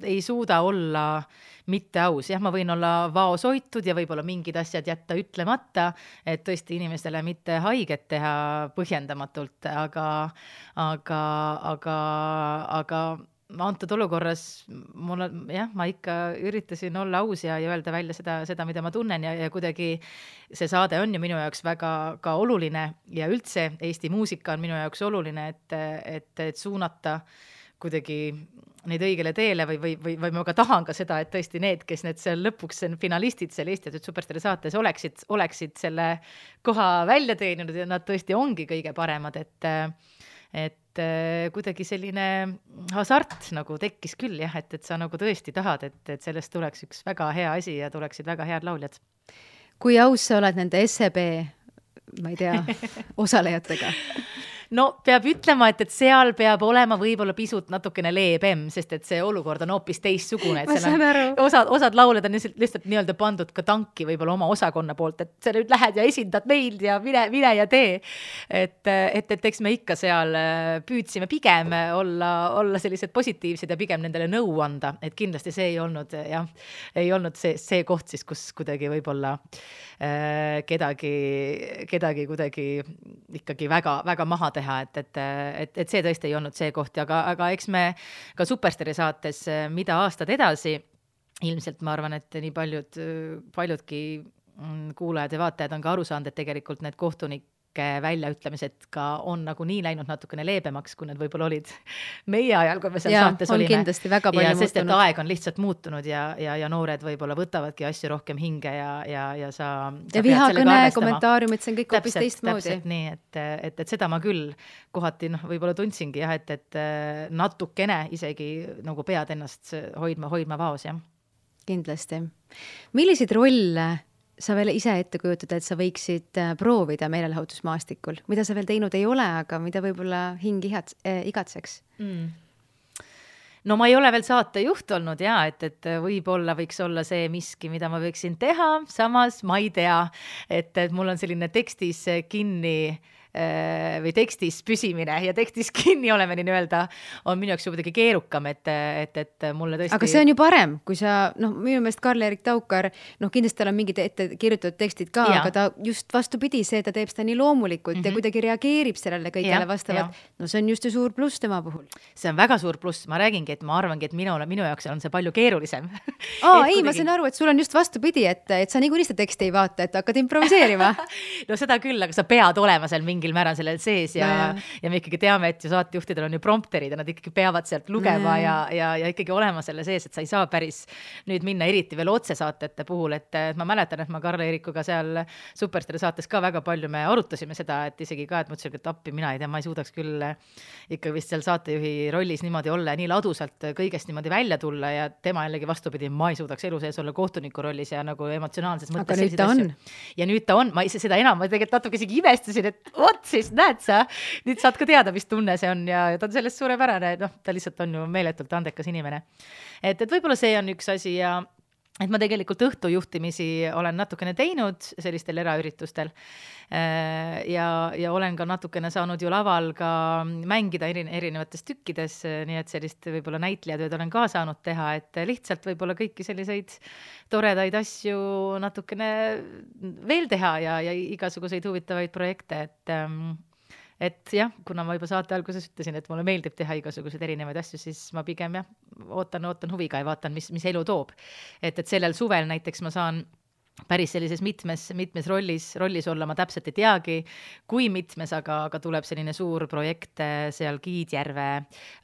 ei suuda olla mitte aus. Jah, ma võin olla vaosoitud ja võib-olla mingid asjad jätta ütlemata, et tõesti inimestele mitte haiget teha põhjendamatult, aga antud olukorras ma ikka üritasin olla aus ja öelda välja seda, mida ma tunnen ja kuidagi see saade on ju minu jaoks väga ka oluline ja üldse Eesti muusika on minu jaoks oluline, et suunata kuidagi neid õigele teele või ma ka tahan ka seda, et tõesti need, kes need seal lõpuks finalistid seal Eesti Superstaari saates oleksid selle koha välja teeninud ja nad tõesti ongi kõige paremad, et kuidagi selline hasart nagu tekkis küll jah, et sa nagu tõesti tahad, et sellest tuleks üks väga hea asi ja tuleksid väga head lauljad. Kui aus sa oled nende SEB, ma ei tea, osalejatega? No peab ütlema, et seal peab olema võib-olla pisut natukene leebem, sest et see olukord on hoopis teissugune, et osad lauled on lihtsalt nii-öelda pandud ka tanki võib-olla oma osakonna poolt, et sa nüüd lähed ja esindad meid ja mine ja tee. Et eks me ikka seal püüdsime pigem olla sellised positiivsed ja pigem nendele nõu anda, et kindlasti see ei olnud see koht siis, kus kuidagi võib-olla kedagi kuidagi ikkagi väga maha teha, et see tõesti ei olnud see koht, aga eks me ka Superstaari saates mida aastad edasi, ilmselt ma arvan, et nii paljudki kuulajad ja vaatajad on ka aru saanud, et tegelikult need kohtunike väljaütlemised ka on nagu nii läinud natukene leebemaks, kui need võib-olla olid meie ajal, kui me seal saates olime. Kindlasti väga palju muutunud. Sest et aeg on lihtsalt muutunud ja noored võib-olla võtavadki asju rohkem hinge ja sa vihakõne, kommentaariumid, see on kõik hoopis teistmoodi. Täpselt nii, et seda ma küll kohati võib-olla tundsingi jah, et natukene isegi nagu pead ennast hoidma vaos, jah. Kindlasti. Milliseid rolle sa veel ise ette kujutad, et sa võiksid proovida meelelahutusmaastikul, mida sa veel teinud ei ole, aga mida võib-olla hing igatseks? No ma ei ole veel saatejuht olnud et võib-olla võiks olla see miski, mida ma võiksin teha, samas ma ei tea, et mul on selline tekstis kinni või tekstis püsimine ja tekstis kinni olemine nii-öelda on minu jaoks muidugi keerukam, et mulle tõesti... Aga see on ju parem, kui sa, minu meelest Karl-Erik Taukar, kindlasti tal on mingid ette kirjutatud tekstid ka, aga ta just vastupidi, ta teeb seda nii loomulikult ja kuidagi reageerib sellele kõigele vastavalt. No see on just ju suur pluss tema puhul. See on väga suur pluss, ma räägingi, et ma arvangi, et minu jaoks on see palju keerulisem. Ei, ma saan aru, et sul on just vastupidi, et sa niikuinii seda teksti ei vaata, et hakkad improviseerima. No seda küll, aga sa pead olema seal mingil määral sellel sees ja me ikkagi teame, et ju saatejuhtidel on ju prompterid ja nad ikkagi peavad sealt lugema ja ikkagi olema selle sees, et sa ei saa päris nüüd minna eriti veel otsesaatete puhul, et ma mäletan, et ma Karl-Erikuga seal Superstaari saates ka väga palju me arutasime seda, et isegi ka, et mõtlesin, et appi mina ei tea, ma ei suudaks küll ikka vist seal saatejuhi rollis niimoodi olla ja nii ladusalt kõigest niimoodi välja tulla ja tema jällegi vastupidi, ma ei suudaks elu sees olla kohtuniku rollis ja nagu emotsionaalses mõttes. Aga nüüd ta on. Ja nüüd ta on, ma seda enam, ma tegelikult natuke isegi imestasin, et siis näed sa, nüüd saad ka teada, mis tunne see on ja ta on sellest suurepärane, ta lihtsalt on ju meeletult andekas inimene. Et võib-olla see on üks asi ja et ma tegelikult õhtujuhtimisi olen natukene teinud sellistel eraüritustel ja olen ka natukene saanud ju laval ka mängida erinevates tükkides, nii et sellist võib-olla näitlejatööd olen ka saanud teha, et lihtsalt võib-olla kõiki selliseid toredaid asju natukene veel teha ja igasuguseid huvitavaid projekte, et jah, kuna ma juba saate alguses ütlesin, et mulle meeldib teha igasuguseid erinevaid asju, siis ma pigem ootan huviga ja vaatan, mis elu toob. Et sellel suvel näiteks ma saan päris sellises mitmes rollis olla, ma täpselt ei teagi, kui mitmes, aga tuleb selline suur projekt seal Kiidjärve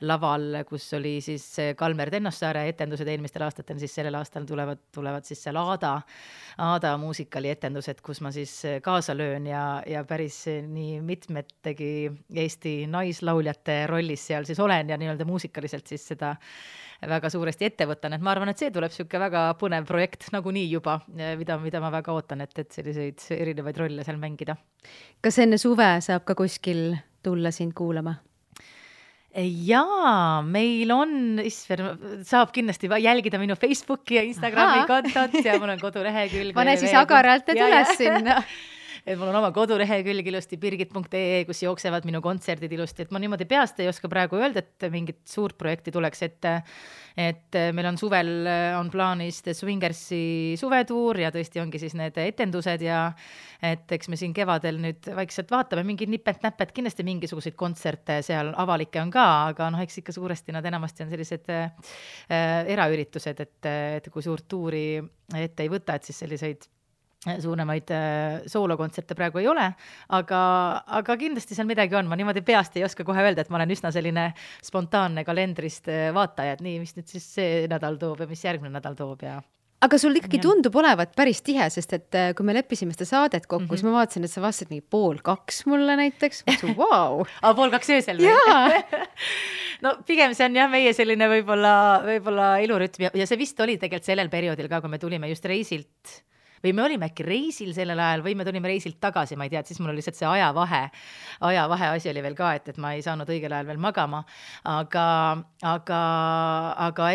laval, kus oli siis Kalmer Tennossaare etendused eelmistel aastatel, siis sellel aastal tulevad siis seal Aada muusikali etendused, kus ma siis kaasa löön ja päris nii mitmetegi Eesti naislauljate rollis seal siis olen ja nii-öelda muusikaliselt siis seda väga suuresti ette võtan, et ma arvan, et see tuleb siuke väga põnev projekt nagunii juba, mida ma väga ootan, et selliseid erinevaid rolle seal mängida. Kas enne suve saab ka kuskil tulla sind kuulama? Jaa, meil on, saab kindlasti jälgida minu Facebooki ja Instagrami kontot ja mul on kodulehekülg. Pane siis agaralt üles sinna. et mul on oma kodulehekülg ilusti birgit.ee, kus jooksevad minu kontserdid ilusti, et ma niimoodi peast ei oska praegu öelda, et mingit suurt projekti tuleks, et meil on suvel on plaanis The Swingersi suvetuur ja tõesti ongi siis need etendused ja et eks me siin kevadel nüüd vaikselt vaatame mingid nipet-näpet, kindlasti mingisuguseid kontserte seal avalikke on ka, aga eks ikka suuresti nad enamasti on sellised eraüritused, et kui suurt tuuri ette ei võta, et siis selliseid suuremaid soolokontserte praegu ei ole, aga kindlasti seal midagi on, ma niimoodi peast ei oska kohe öelda, et ma olen üsna selline spontaanne kalendrist vaataja, et nii, mis nüüd siis see nädal toob ja mis järgmine nädal toob ja aga sul ikkagi tundub olevat päris tihe, sest et kui me leppisime seda saadet kokku, siis ma vaatasin, et sa vastasid mingi 1:30 mulle näiteks. Vau! 1:30 öösel või? No pigem see on jah meie selline võib-olla ilurütm ja see vist oli tegelikult sellel perioodil ka, kui me tulime just reisilt või me olime äkki reisil sellel ajal või me tulime reisilt tagasi, ma ei tea, et siis mul oli lihtsalt see ajavahe asi oli veel ka, et ma ei saanud õigel ajal veel magama, aga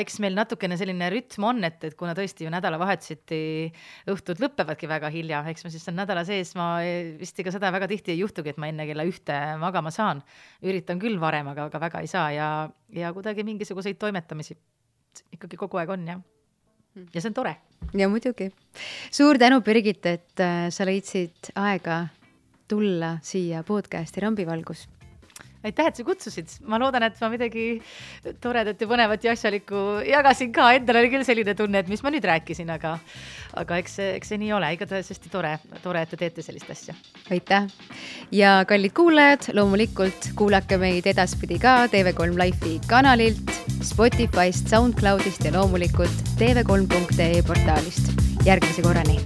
eks meil natukene selline rütm on, et kuna tõesti ju nädalavahetuseti õhtud lõppevadki väga hilja, eks ma siis on nädala sees, ma vist ega seda väga tihti ei juhtugi, et ma enne kella 1 magama saan, üritan küll varem, aga väga ei saa ja kuidagi mingisuguseid toimetamisi ikkagi kogu aeg on, jah. Ja see on tore. Ja muidugi. Suur tänu, Birgit, et sa leidsid aega tulla siia podcasti Rambivalgus. Aitäh, et sa kutsusid. Ma loodan, et ma midagi toredat ja põnevat ja asjalikku jagasin ka. Endal oli küll selline tunne, et mis ma nüüd rääkisin, aga eks see nii ole. Igatahes hästi tore, et te teete sellist asja. Aitäh. Ja kallid kuulajad, loomulikult kuulake meid edaspidi ka TV3 Life'i kanalilt, Spotify'st, SoundCloud'ist ja loomulikult tv3.ee portaalist. Järgmise korrani!